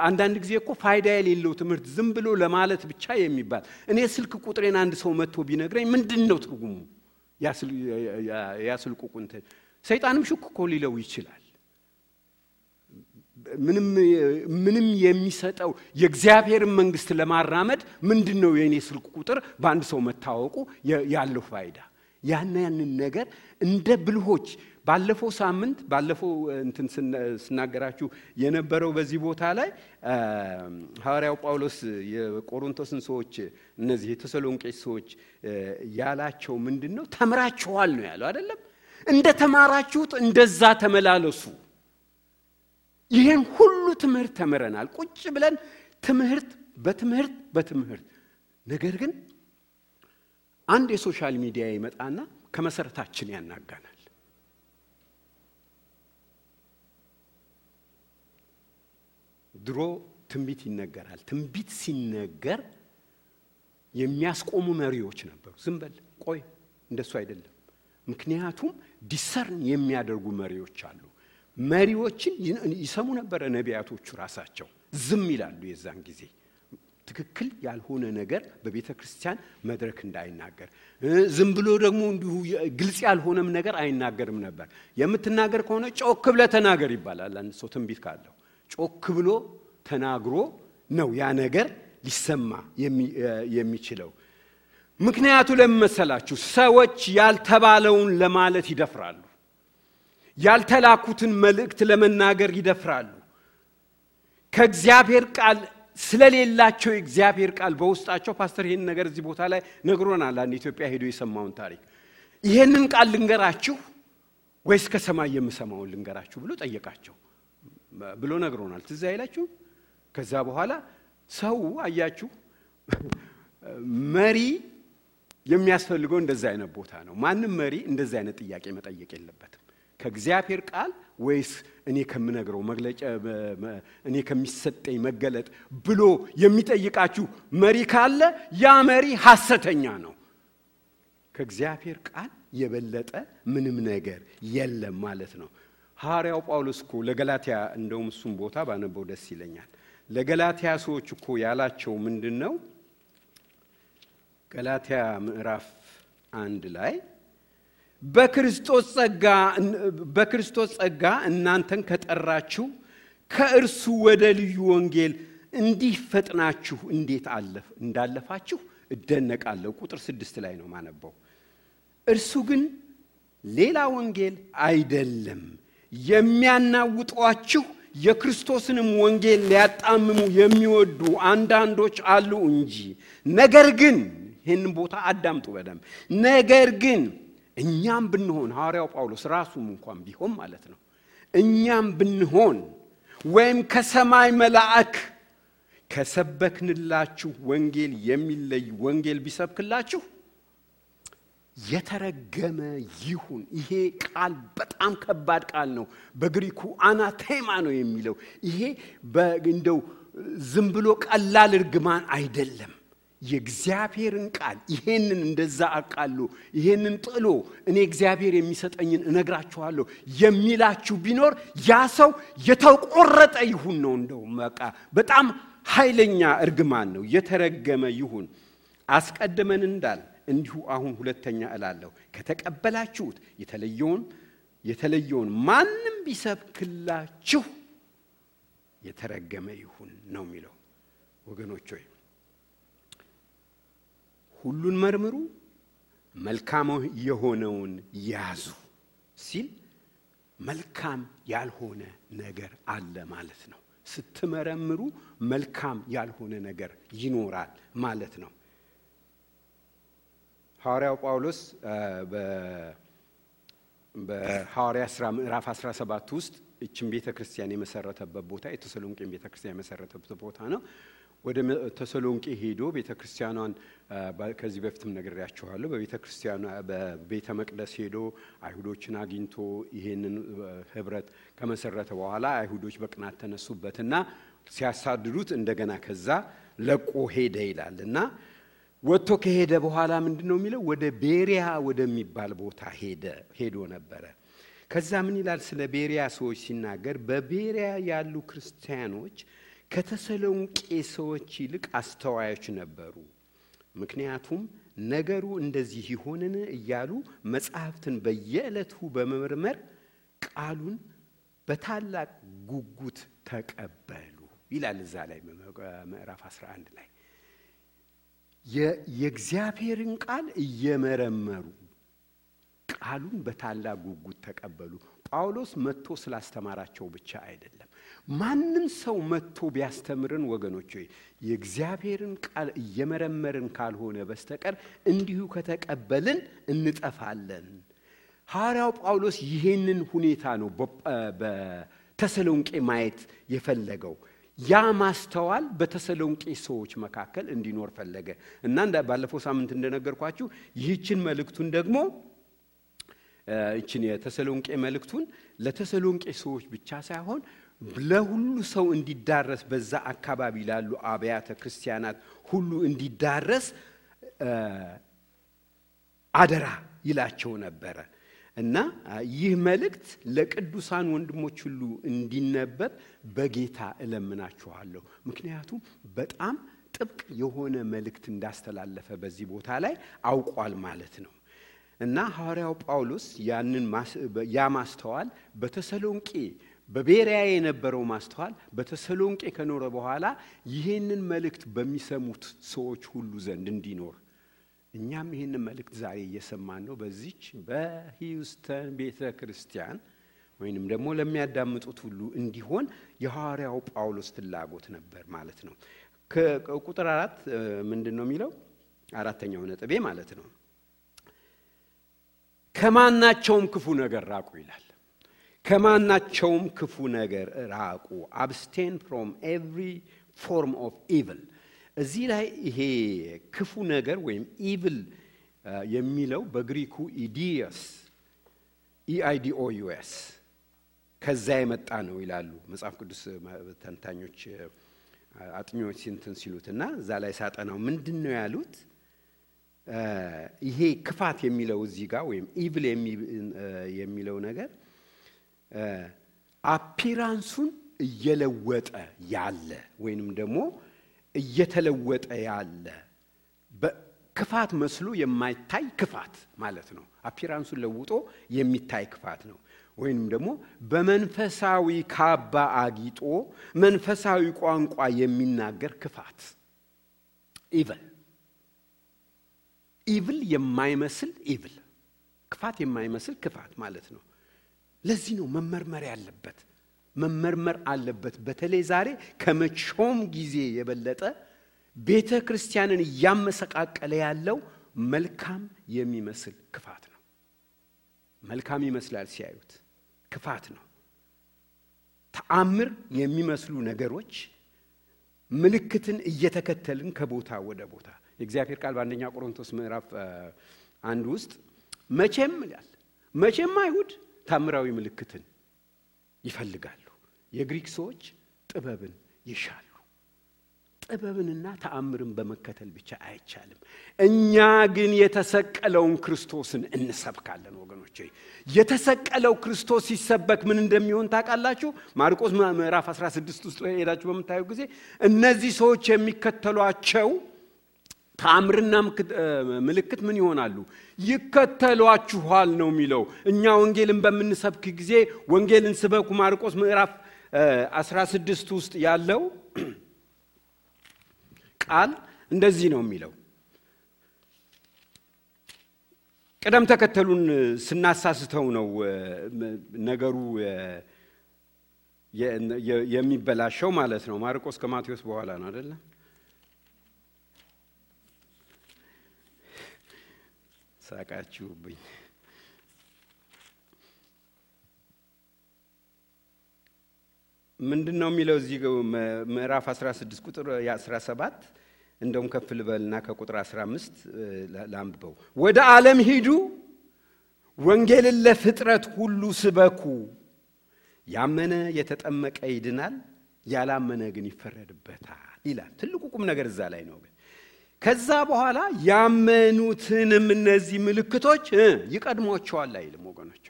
አንዳንድ ጊዜ እኮ ፋይዳ የሌለው ትምህርት ዝም ብሎ ለማለት ብቻ የሚባል እኔ ስልክ ቁጥሬን አንድ ሰው መጥቶ ቢነግረኝ ምንድነው ትርጉሙ? ያ ስልኩ ቁጥር ሰይጣንም ሽኩ እኮ ሊለው ይችላል። ምንም የሚሰጠው የእግዚአብሔርን መንግስት ለማራመድ ምንድነው የኔ ስልክ ቁጥር በአንድ ሰው መታወቁ ያለው ፋይዳ? ያንን ነገር እንደ ብልሆች ባለፈው ሳምንት እንትን ስናገራችሁ የነበረው በዚህ ቦታ ላይ ሐዋርያው ጳውሎስ የቆሮንቶስን ሰዎች እነዚህ የተሰሎንቄ ሰዎች ያላቸው ምንድነው? ተምራችኋል ነው ያለው አይደለም? እንደ ተማራችሁት እንደዛ ተመላለሱ። ይሄን ሁሉ ትምህርት ተምረናል ቁጭ ብለን በትምህርት ነገር ግን አንድ የሶሻል ሚዲያ ይመጣና ከመሰረታችን ያናጋናል። ድሮ ትንቢት ይነገራል። ትንቢት ሲነገር የሚያስቆሙ መሪዎች ነበሩ። ዝም በል ቆይ እንደሱ አይደለም። ምክንያቱም ዲሰርን የሚያደርጉ መሪዎች አሉ። መሪዎችን ይሰሙ ነበር ነቢያቶቹ ራሳቸው። ዝም ይላሉ የዛን ጊዜ ትክክል ያልሆነ ነገር በቤተክርስቲያን መድረክ እንዳይናገር። ዝም ብሎ ደግሞ እንዲሁ ግልጽ ያልሆነም ነገር አይናገርም ነበር። የምትናገር ከሆነ ጮክ ብለህ ተናገር ይባላል። አንድ ሰው ትንቢት ካለው ጮክ ብሎ ተናግሮ ነው ያ ነገር ሊሰማ የሚችለው። ምክንያቱ ለምን መሰላችሁ? ሰዎች ያልተባለውን ለማለት ይደፍራሉ። ያልተላኩትን መልእክት ለመናገር ይደፍራሉ። ከእግዚአብሔር ቃል ስለሌላቸው የእግዚአብሔር ቃል በውስጣቸው ፓስተር ይሄን ነገር እዚህ ቦታ ላይ ነግሮናል። አንድ ኢትዮጵያ ሄዶ የሰማውን ታሪክ ይሄንን ቃል ልንገራችሁ ወይስ ከሰማይ የምሰማውን ልንገራችሁ ብሎ ጠየቃቸው ብሎ ነግሮናል። ትዝ አይላችሁ? ከዛ በኋላ ሰው አያችሁ መሪ የሚያስፈልገው እንደዛ አይነት ቦታ ነው። ማንም መሪ እንደዛ አይነት ጥያቄ መጠየቅ የለበትም። ከእግዚአብሔር ቃል ወይስ እኔ ከምነግረው መግለጫ እኔ ከሚሰጠኝ መገለጥ ብሎ የሚጠይቃችሁ መሪ ካለ ያ መሪ ሐሰተኛ ነው። ከእግዚአብሔር ቃል የበለጠ ምንም ነገር የለም ማለት ነው። ሐዋርያው ጳውሎስ እኮ ለገላትያ እንደውም እሱም ቦታ ባነበው ደስ ይለኛል። ለገላትያ ሰዎች እኮ ያላቸው ምንድነው? ገላትያ ምዕራፍ 1 ላይ በክርስቶስ ጸጋ እናንተን ከጠራችሁ ከእርሱ ወደ ልዩ ወንጌል እንዲፈጥናችሁ እንዴት እንዳለፋችሁ እደነቃለሁ። ቁጥር 6 ላይ ነው ማነበው። እርሱ ግን ሌላ ወንጌል አይደለም፣ የሚያናውጧችሁ የክርስቶስንም ወንጌል ሊያጣምሙ የሚወዱ አንዳንዶች አሉ እንጂ። ነገር ግን ይሄንን ቦታ አዳምጡ በደም። ነገር ግን እኛም ብንሆን ሐዋርያው ጳውሎስ ራሱም እንኳን ቢሆን ማለት ነው እኛም ብንሆን ወይም ከሰማይ መልአክ ከሰበክንላችሁ ወንጌል የሚለይ ወንጌል ቢሰብክላችሁ የተረገመ ይሁን። ይሄ ቃል በጣም ከባድ ቃል ነው። በግሪኩ አናቴማ ነው የሚለው። ይሄ እንደው ዝም ብሎ ቀላል እርግማን አይደለም። የእግዚአብሔርን ቃል ይሄንን እንደዛ አቃሉ ይሄንን ጥሎ እኔ እግዚአብሔር የሚሰጠኝን እነግራችኋለሁ የሚላችሁ ቢኖር ያ ሰው የተቆረጠ ይሁን ነው። እንደው በጣም ኃይለኛ እርግማን ነው። የተረገመ ይሁን። አስቀድመን እንዳል እንዲሁ አሁን ሁለተኛ እላለሁ፣ ከተቀበላችሁት የተለየውን ማንም ቢሰብክላችሁ የተረገመ ይሁን ነው የሚለው። ወገኖች ሆይ ሁሉን መርምሩ፣ መልካም የሆነውን ያዙ ሲል መልካም ያልሆነ ነገር አለ ማለት ነው። ስትመረምሩ መልካም ያልሆነ ነገር ይኖራል ማለት ነው። ሐዋርያው ጳውሎስ በሐዋርያት ሥራ ምዕራፍ 17 ውስጥ እቺን ቤተክርስቲያን የመሰረተበት ቦታ የተሰሎንቄን ቤተክርስቲያን የመሰረተበት ቦታ ነው። ወደ ተሰሎንቄ ሄዶ ቤተክርስቲያኗን ከዚህ በፊትም ነግሬያችኋለሁ። በቤተክርስቲያኗ በቤተ መቅደስ ሄዶ አይሁዶችን አግኝቶ ይሄንን ህብረት ከመሰረተ በኋላ አይሁዶች በቅናት ተነሱበትና ሲያሳድዱት እንደገና ከዛ ለቆ ሄደ ይላልና ወጥቶ ከሄደ በኋላ ምንድነው የሚለው ወደ ቤሪያ ወደሚባል ቦታ ሄዶ ነበረ። ከዛ ምን ይላል ስለ ቤሪያ ሰዎች ሲናገር በቤሪያ ያሉ ክርስቲያኖች ከተሰሎንቄ ሰዎች ይልቅ አስተዋዮች ነበሩ። ምክንያቱም ነገሩ እንደዚህ ይሆንን እያሉ መጻሕፍትን በየዕለቱ በመመርመር ቃሉን በታላቅ ጉጉት ተቀበሉ ይላል እዛ ላይ ምዕራፍ 11 ላይ የእግዚአብሔርን ቃል እየመረመሩ ቃሉን በታላቅ ጉጉት ተቀበሉ። ጳውሎስ መጥቶ ስላስተማራቸው ብቻ አይደለም። ማንም ሰው መጥቶ ቢያስተምርን ወገኖች ሆይ የእግዚአብሔርን ቃል እየመረመርን ካልሆነ በስተቀር እንዲሁ ከተቀበልን እንጠፋለን። ሐዋርያው ጳውሎስ ይሄንን ሁኔታ ነው በተሰሎንቄ ማየት የፈለገው። ያ ማስተዋል በተሰሎንቄ ሰዎች መካከል እንዲኖር ፈለገ እና ባለፈው ሳምንት እንደነገርኳችሁ ይህችን መልእክቱን ደግሞ እቺን የተሰሎንቄ መልእክቱን ለተሰሎንቄ ሰዎች ብቻ ሳይሆን ለሁሉ ሰው እንዲዳረስ በዛ አካባቢ ላሉ አብያተ ክርስቲያናት ሁሉ እንዲዳረስ አደራ ይላቸው ነበረ እና ይህ መልእክት ለቅዱሳን ወንድሞች ሁሉ እንዲነበብ በጌታ እለምናችኋለሁ። ምክንያቱም በጣም ጥብቅ የሆነ መልእክት እንዳስተላለፈ በዚህ ቦታ ላይ አውቋል ማለት ነው። እና ሐዋርያው ጳውሎስ ያ ማስተዋል በተሰሎንቄ በቤሪያ የነበረው ማስተዋል በተሰሎንቄ ከኖረ በኋላ ይሄንን መልእክት በሚሰሙት ሰዎች ሁሉ ዘንድ እንዲኖር እኛም ይሄንን መልእክት ዛሬ እየሰማን ነው። በዚች በሂውስተን ቤተክርስቲያን ወይንም ደግሞ ለሚያዳምጡት ሁሉ እንዲሆን የሐዋርያው ጳውሎስ ፍላጎት ነበር ማለት ነው። ከቁጥር 4 ምንድነው የሚለው? አራተኛው ነጥቤ ማለት ነው ከማናቸውም ክፉ ነገር ራቁ ይላል። ከማናቸውም ክፉ ነገር ራቁ። abstain from every form of evil። እዚህ ላይ ይሄ ክፉ ነገር ወይም evil የሚለው በግሪኩ ኢዲዮስ EIDOUS ከዛ የመጣ ነው ይላሉ መጽሐፍ ቅዱስ ተንታኞች አጥኚዎች ሲሉትና እዛ ላይ ሳጠናው ምንድነው ያሉት? ይሄ ክፋት የሚለው እዚህ ጋር ወይም ኢቪል የሚለው ነገር አፒራንሱን እየለወጠ ያለ ወይንም ደግሞ እየተለወጠ ያለ በክፋት መስሎ የማይታይ ክፋት ማለት ነው። አፒራንሱን ለውጦ የሚታይ ክፋት ነው። ወይንም ደግሞ በመንፈሳዊ ካባ አጊጦ መንፈሳዊ ቋንቋ የሚናገር ክፋት ኢቪል የማይመስል ኢቪል ክፋት የማይመስል ክፋት ማለት ነው። ለዚህ ነው መመርመር አለበት። በተለይ ዛሬ ከመቼውም ጊዜ የበለጠ ቤተክርስቲያንን ያመሰቃቀለ ያለው መልካም የሚመስል ክፋት ነው። መልካም ይመስላል ሲያዩት፣ ክፋት ነው። ተአምር የሚመስሉ ነገሮች ምልክትን እየተከተልን ከቦታ ወደ ቦታ የእግዚአብሔር ቃል በአንደኛ ቆሮንቶስ ምዕራፍ 1 ውስጥ መቼም አይሁድ ታምራዊ ምልክትን ይፈልጋሉ፣ የግሪክ ሰዎች ጥበብን ይሻሉ። ጥበብንና ተአምርን በመከተል ብቻ አይቻልም። እኛ ግን የተሰቀለውን ክርስቶስን እንሰብካለን ወገኖቼ። የተሰቀለው ክርስቶስ ሲሰበክ ምን እንደሚሆን ታውቃላችሁ? ማርቆስ ምዕራፍ 16 ውስጥ ሄዳችሁ በመታዩ ጊዜ እነዚህ ሰዎች የሚከተሏቸው ተአምርና ምልክት ምን ይሆናሉ? ይከተሏችኋል ነው የሚለው። እኛ ወንጌልን በመንሰብክ ጊዜ ወንጌልን ስበኩ ማርቆስ ምዕራፍ 16 ውስጥ ያለው ቃል እንደዚህ ነው የሚለው። ቀደም ተከተሉን ስናሳስተው ነው ነገሩ የሚበላሸው ማለት ነው። ማርቆስ ከማቴዎስ በኋላ ነው አይደል? ሳቃችሁብኝ። ምንድነው የሚለው እዚህ ምዕራፍ 16 ቁጥር 17 እንደውም ከፍ ልበልና ከቁጥር 15 ላንብበው። ወደ ዓለም ሂዱ ወንጌልን ለፍጥረት ሁሉ ስበኩ፣ ያመነ የተጠመቀ ይድናል፣ ያላመነ ግን ይፈረድበታል ይላል። ትልቁ ቁም ነገር እዛ ላይ ነው። ከዛ በኋላ ያመኑትንም እነዚህ ምልክቶች ይቀድሟቸዋል አይልም ወገኖች፣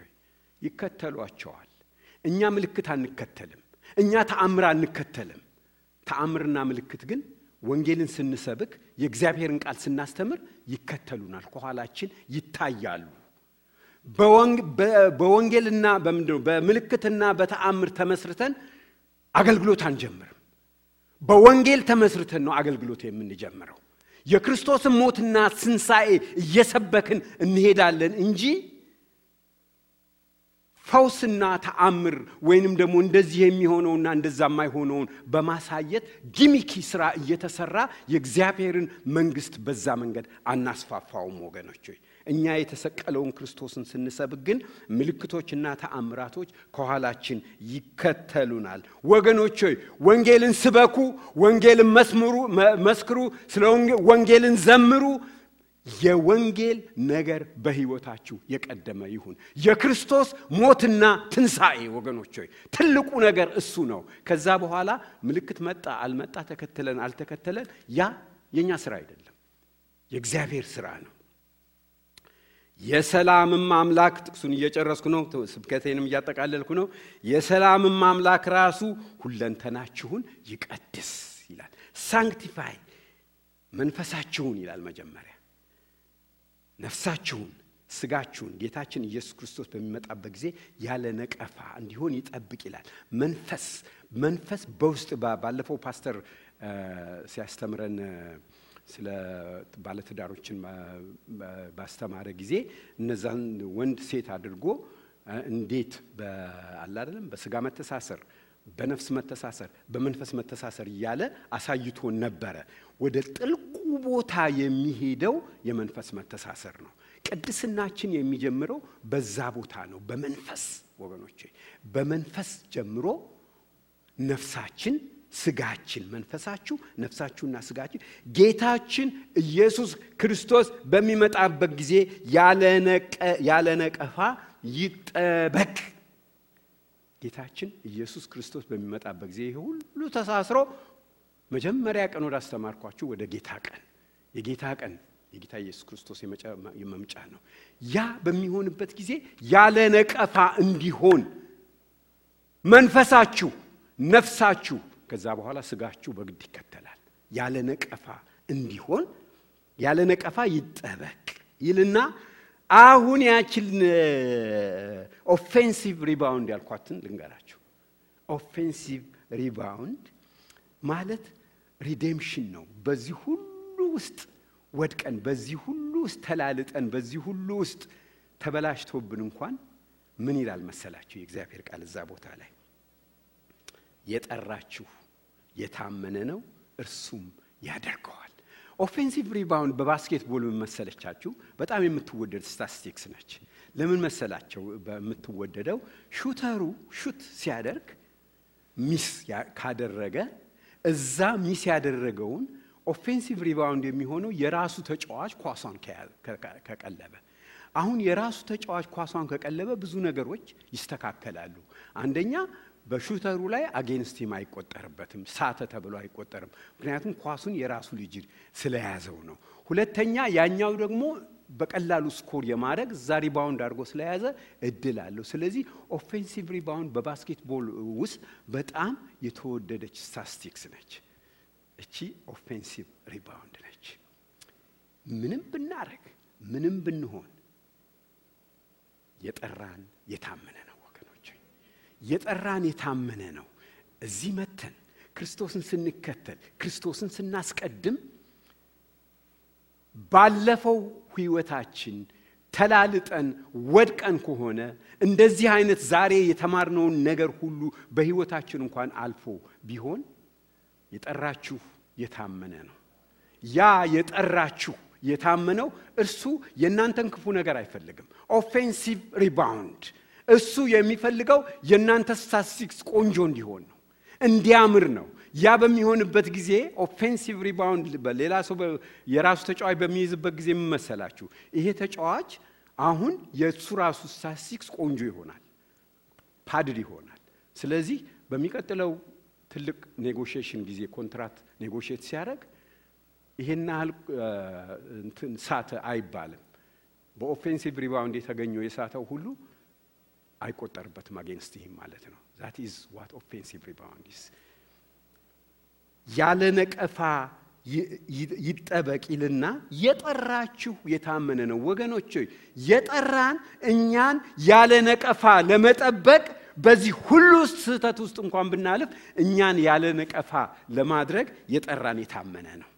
ይከተሏቸዋል። እኛ ምልክት አንከተልም፣ እኛ ተአምር አንከተልም። ተአምርና ምልክት ግን ወንጌልን ስንሰብክ የእግዚአብሔርን ቃል ስናስተምር ይከተሉናል፣ ከኋላችን ይታያሉ። በወንጌልና በምልክትና በተአምር ተመስርተን አገልግሎት አንጀምርም። በወንጌል ተመስርተን ነው አገልግሎት የምንጀምረው። የክርስቶስን ሞትና ትንሣኤ እየሰበክን እንሄዳለን እንጂ ፈውስና ተአምር ወይንም ደግሞ እንደዚህ የሚሆነውና እንደዛ የማይሆነውን በማሳየት ጊሚኪ ስራ እየተሰራ የእግዚአብሔርን መንግስት በዛ መንገድ አናስፋፋውም ወገኖች። እኛ የተሰቀለውን ክርስቶስን ስንሰብክ ግን ምልክቶችና ተአምራቶች ከኋላችን ይከተሉናል። ወገኖች ወንጌልን ስበኩ፣ ወንጌልን መስክሩ፣ ስለ ወንጌልን ዘምሩ። የወንጌል ነገር በህይወታችሁ የቀደመ ይሁን። የክርስቶስ ሞትና ትንሣኤ ወገኖች ትልቁ ነገር እሱ ነው። ከዛ በኋላ ምልክት መጣ አልመጣ፣ ተከተለን አልተከተለን፣ ያ የኛ ስራ አይደለም፣ የእግዚአብሔር ስራ ነው። የሰላምም አምላክ፣ ጥቅሱን እየጨረስኩ ነው፣ ስብከቴንም እያጠቃለልኩ ነው። የሰላምም አምላክ ራሱ ሁለንተናችሁን ይቀድስ ይላል። ሳንክቲፋይ መንፈሳችሁን ይላል መጀመሪያ። ነፍሳችሁን፣ ስጋችሁን ጌታችን ኢየሱስ ክርስቶስ በሚመጣበት ጊዜ ያለ ነቀፋ እንዲሆን ይጠብቅ ይላል። መንፈስ በውስጥ ባለፈው ፓስተር ሲያስተምረን ስለ ባለትዳሮችን ባስተማረ ጊዜ እነዛን ወንድ ሴት አድርጎ እንዴት በአላደለም በስጋ መተሳሰር፣ በነፍስ መተሳሰር፣ በመንፈስ መተሳሰር እያለ አሳይቶን ነበረ። ወደ ጥልቁ ቦታ የሚሄደው የመንፈስ መተሳሰር ነው። ቅድስናችን የሚጀምረው በዛ ቦታ ነው፣ በመንፈስ ወገኖቼ። በመንፈስ ጀምሮ ነፍሳችን፣ ስጋችን፣ መንፈሳችሁ፣ ነፍሳችሁና ስጋችሁ ጌታችን ኢየሱስ ክርስቶስ በሚመጣበት ጊዜ ያለ ነቀፋ ይጠበቅ። ጌታችን ኢየሱስ ክርስቶስ በሚመጣበት ጊዜ ሁሉ ተሳስሮ መጀመሪያ ቀን ወደ አስተማርኳችሁ ወደ ጌታ ቀን፣ የጌታ ቀን የጌታ ኢየሱስ ክርስቶስ የመምጫ ነው። ያ በሚሆንበት ጊዜ ያለ ነቀፋ እንዲሆን መንፈሳችሁ፣ ነፍሳችሁ፣ ከዛ በኋላ ስጋችሁ በግድ ይከተላል። ያለ ነቀፋ እንዲሆን ያለ ነቀፋ ይጠበቅ ይልና አሁን ያችን ኦፌንሲቭ ሪባውንድ ያልኳትን ልንገራችሁ። ኦፌንሲቭ ሪባውንድ ማለት ሪዴምፕሽን ነው። በዚህ ሁሉ ውስጥ ወድቀን፣ በዚህ ሁሉ ውስጥ ተላልጠን፣ በዚህ ሁሉ ውስጥ ተበላሽቶብን እንኳን ምን ይላል መሰላችሁ የእግዚአብሔር ቃል እዛ ቦታ ላይ? የጠራችሁ የታመነ ነው እርሱም ያደርገዋል። ኦፌንሲቭ ሪባውንድ በባስኬትቦል ምን መሰለቻችሁ? በጣም የምትወደድ ስታቲስቲክስ ነች። ለምን መሰላችሁ በምትወደደው? ሹተሩ ሹት ሲያደርግ ሚስ ካደረገ እዛ ሚስ ያደረገውን ኦፌንሲቭ ሪባውንድ የሚሆነው የራሱ ተጫዋች ኳሷን ከቀለበ። አሁን የራሱ ተጫዋች ኳሷን ከቀለበ ብዙ ነገሮች ይስተካከላሉ። አንደኛ በሹተሩ ላይ አጌንስት ሂም አይቆጠርበትም፣ ሳተ ተብሎ አይቆጠርም። ምክንያቱም ኳሱን የራሱ ልጅ ስለያዘው ነው። ሁለተኛ ያኛው ደግሞ በቀላሉ ስኮር የማድረግ እዛ ሪባውንድ አድርጎ ስለያዘ እድል አለው። ስለዚህ ኦፌንሲቭ ሪባውንድ በባስኬትቦል ውስጥ በጣም የተወደደች ስታቲስቲክስ ነች። እቺ ኦፌንሲቭ ሪባውንድ ነች። ምንም ብናረግ፣ ምንም ብንሆን የጠራን የታመነ ነው ወገኖች። የጠራን የታመነ ነው። እዚህ መተን ክርስቶስን ስንከተል፣ ክርስቶስን ስናስቀድም ባለፈው ህይወታችን ተላልጠን ወድቀን ከሆነ እንደዚህ አይነት ዛሬ የተማርነውን ነገር ሁሉ በህይወታችን እንኳን አልፎ ቢሆን የጠራችሁ የታመነ ነው። ያ የጠራችሁ የታመነው እርሱ የናንተን ክፉ ነገር አይፈልግም። ኦፌንሲቭ ሪባውንድ እሱ የሚፈልገው የናንተ ስታቲስቲክስ ቆንጆ እንዲሆን ነው። እንዲያምር ነው። ያ በሚሆንበት ጊዜ ኦፌንሲቭ ሪባውንድ በሌላ ሰው የራሱ ተጫዋች በሚይዝበት ጊዜ ምን መሰላችሁ? ይሄ ተጫዋች አሁን የሱ ራሱ ስታቲስቲክስ ቆንጆ ይሆናል፣ ፓድድ ይሆናል። ስለዚህ በሚቀጥለው ትልቅ ኔጎሺዬሽን ጊዜ ኮንትራት ኔጎሺዬት ሲያደርግ ይሄን ያህል እንትን ሳተ አይባልም። በኦፌንሲቭ ሪባውንድ የተገኘው የሳተው ሁሉ አይቆጠርበትም አጌንስት ሂም ማለት ነው። that is what offensive rebound is። ያለ ነቀፋ ይጠበቅ ይልና የጠራችሁ የታመነ ነው። ወገኖች የጠራን እኛን ያለ ነቀፋ ለመጠበቅ በዚህ ሁሉ ስህተት ውስጥ እንኳን ብናልፍ እኛን ያለ ነቀፋ ለማድረግ የጠራን የታመነ ነው።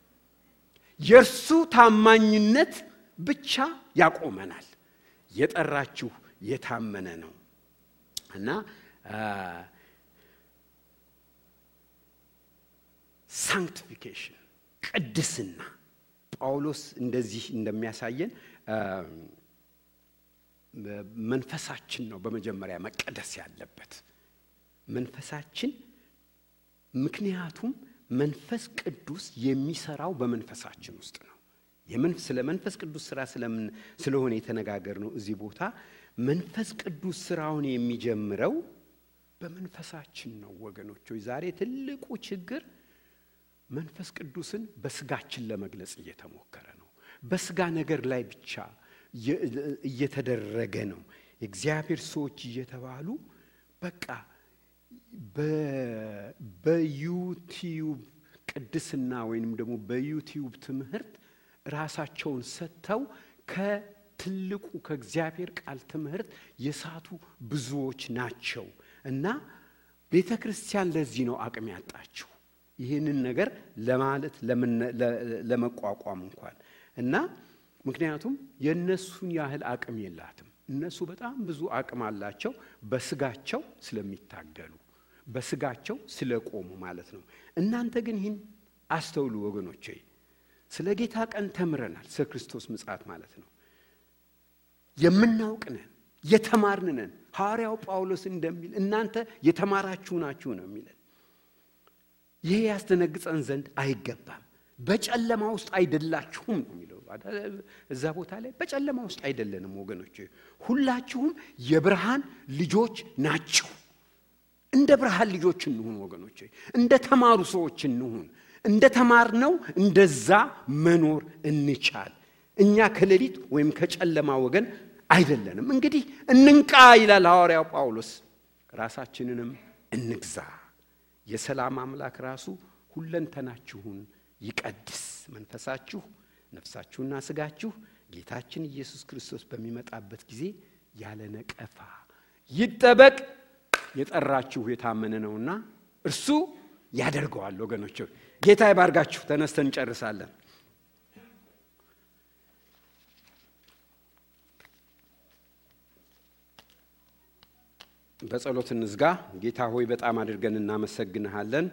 የእርሱ ታማኝነት ብቻ ያቆመናል። የጠራችሁ የታመነ ነው እና ሳንክቲፊኬሽን ቅድስና ጳውሎስ እንደዚህ እንደሚያሳየን መንፈሳችን ነው በመጀመሪያ መቀደስ ያለበት መንፈሳችን። ምክንያቱም መንፈስ ቅዱስ የሚሰራው በመንፈሳችን ውስጥ ነው። ስለ መንፈስ ቅዱስ ስራ ስለሆነ የተነጋገርነው እዚህ ቦታ መንፈስ ቅዱስ ስራውን የሚጀምረው በመንፈሳችን ነው። ወገኖች ዛሬ ትልቁ ችግር መንፈስ ቅዱስን በስጋችን ለመግለጽ እየተሞከረ ነው። በስጋ ነገር ላይ ብቻ እየተደረገ ነው። እግዚአብሔር ሰዎች እየተባሉ በቃ በዩቲዩብ ቅድስና ወይንም ደግሞ በዩቲዩብ ትምህርት ራሳቸውን ሰጥተው ከትልቁ ከእግዚአብሔር ቃል ትምህርት የሳቱ ብዙዎች ናቸው እና ቤተክርስቲያን ለዚህ ነው አቅም ያጣችው ይሄንን ነገር ለማለት ለመቋቋም እንኳን እና ምክንያቱም የነሱን ያህል አቅም የላትም። እነሱ በጣም ብዙ አቅም አላቸው በስጋቸው ስለሚታገሉ በስጋቸው ስለቆሙ ማለት ነው። እናንተ ግን ይህን አስተውሉ ወገኖቼ። ስለ ጌታ ቀን ተምረናል። ስለ ክርስቶስ ምጽአት ማለት ነው የምናውቅነን የተማርነን። ሐዋርያው ጳውሎስ እንደሚል እናንተ የተማራችሁ ናችሁ ነው የሚለን። ይሄ ያስተነግጸን ዘንድ አይገባም። በጨለማ ውስጥ አይደላችሁም ነው የሚለው እዛ ቦታ ላይ። በጨለማ ውስጥ አይደለንም ወገኖቼ፣ ሁላችሁም የብርሃን ልጆች ናችሁ። እንደ ብርሃን ልጆች እንሁን ወገኖቼ፣ እንደ ተማሩ ሰዎች እንሁን። እንደ ተማርነው እንደዛ መኖር እንቻል። እኛ ከሌሊት ወይም ከጨለማ ወገን አይደለንም። እንግዲህ እንንቃ ይላል ሐዋርያው ጳውሎስ። ራሳችንንም እንግዛ። የሰላም አምላክ ራሱ ሁለንተናችሁን ይቀድስ። መንፈሳችሁ፣ ነፍሳችሁና ስጋችሁ ጌታችን ኢየሱስ ክርስቶስ በሚመጣበት ጊዜ ያለ ነቀፋ ይጠበቅ። የጠራችሁ የታመነ ነውና እርሱ ያደርገዋል። ወገኖች ጌታ ይባርካችሁ። ተነስተን እንጨርሳለን። በጸሎት እንዝጋ። ጌታ ሆይ በጣም አድርገን እናመሰግንሃለን።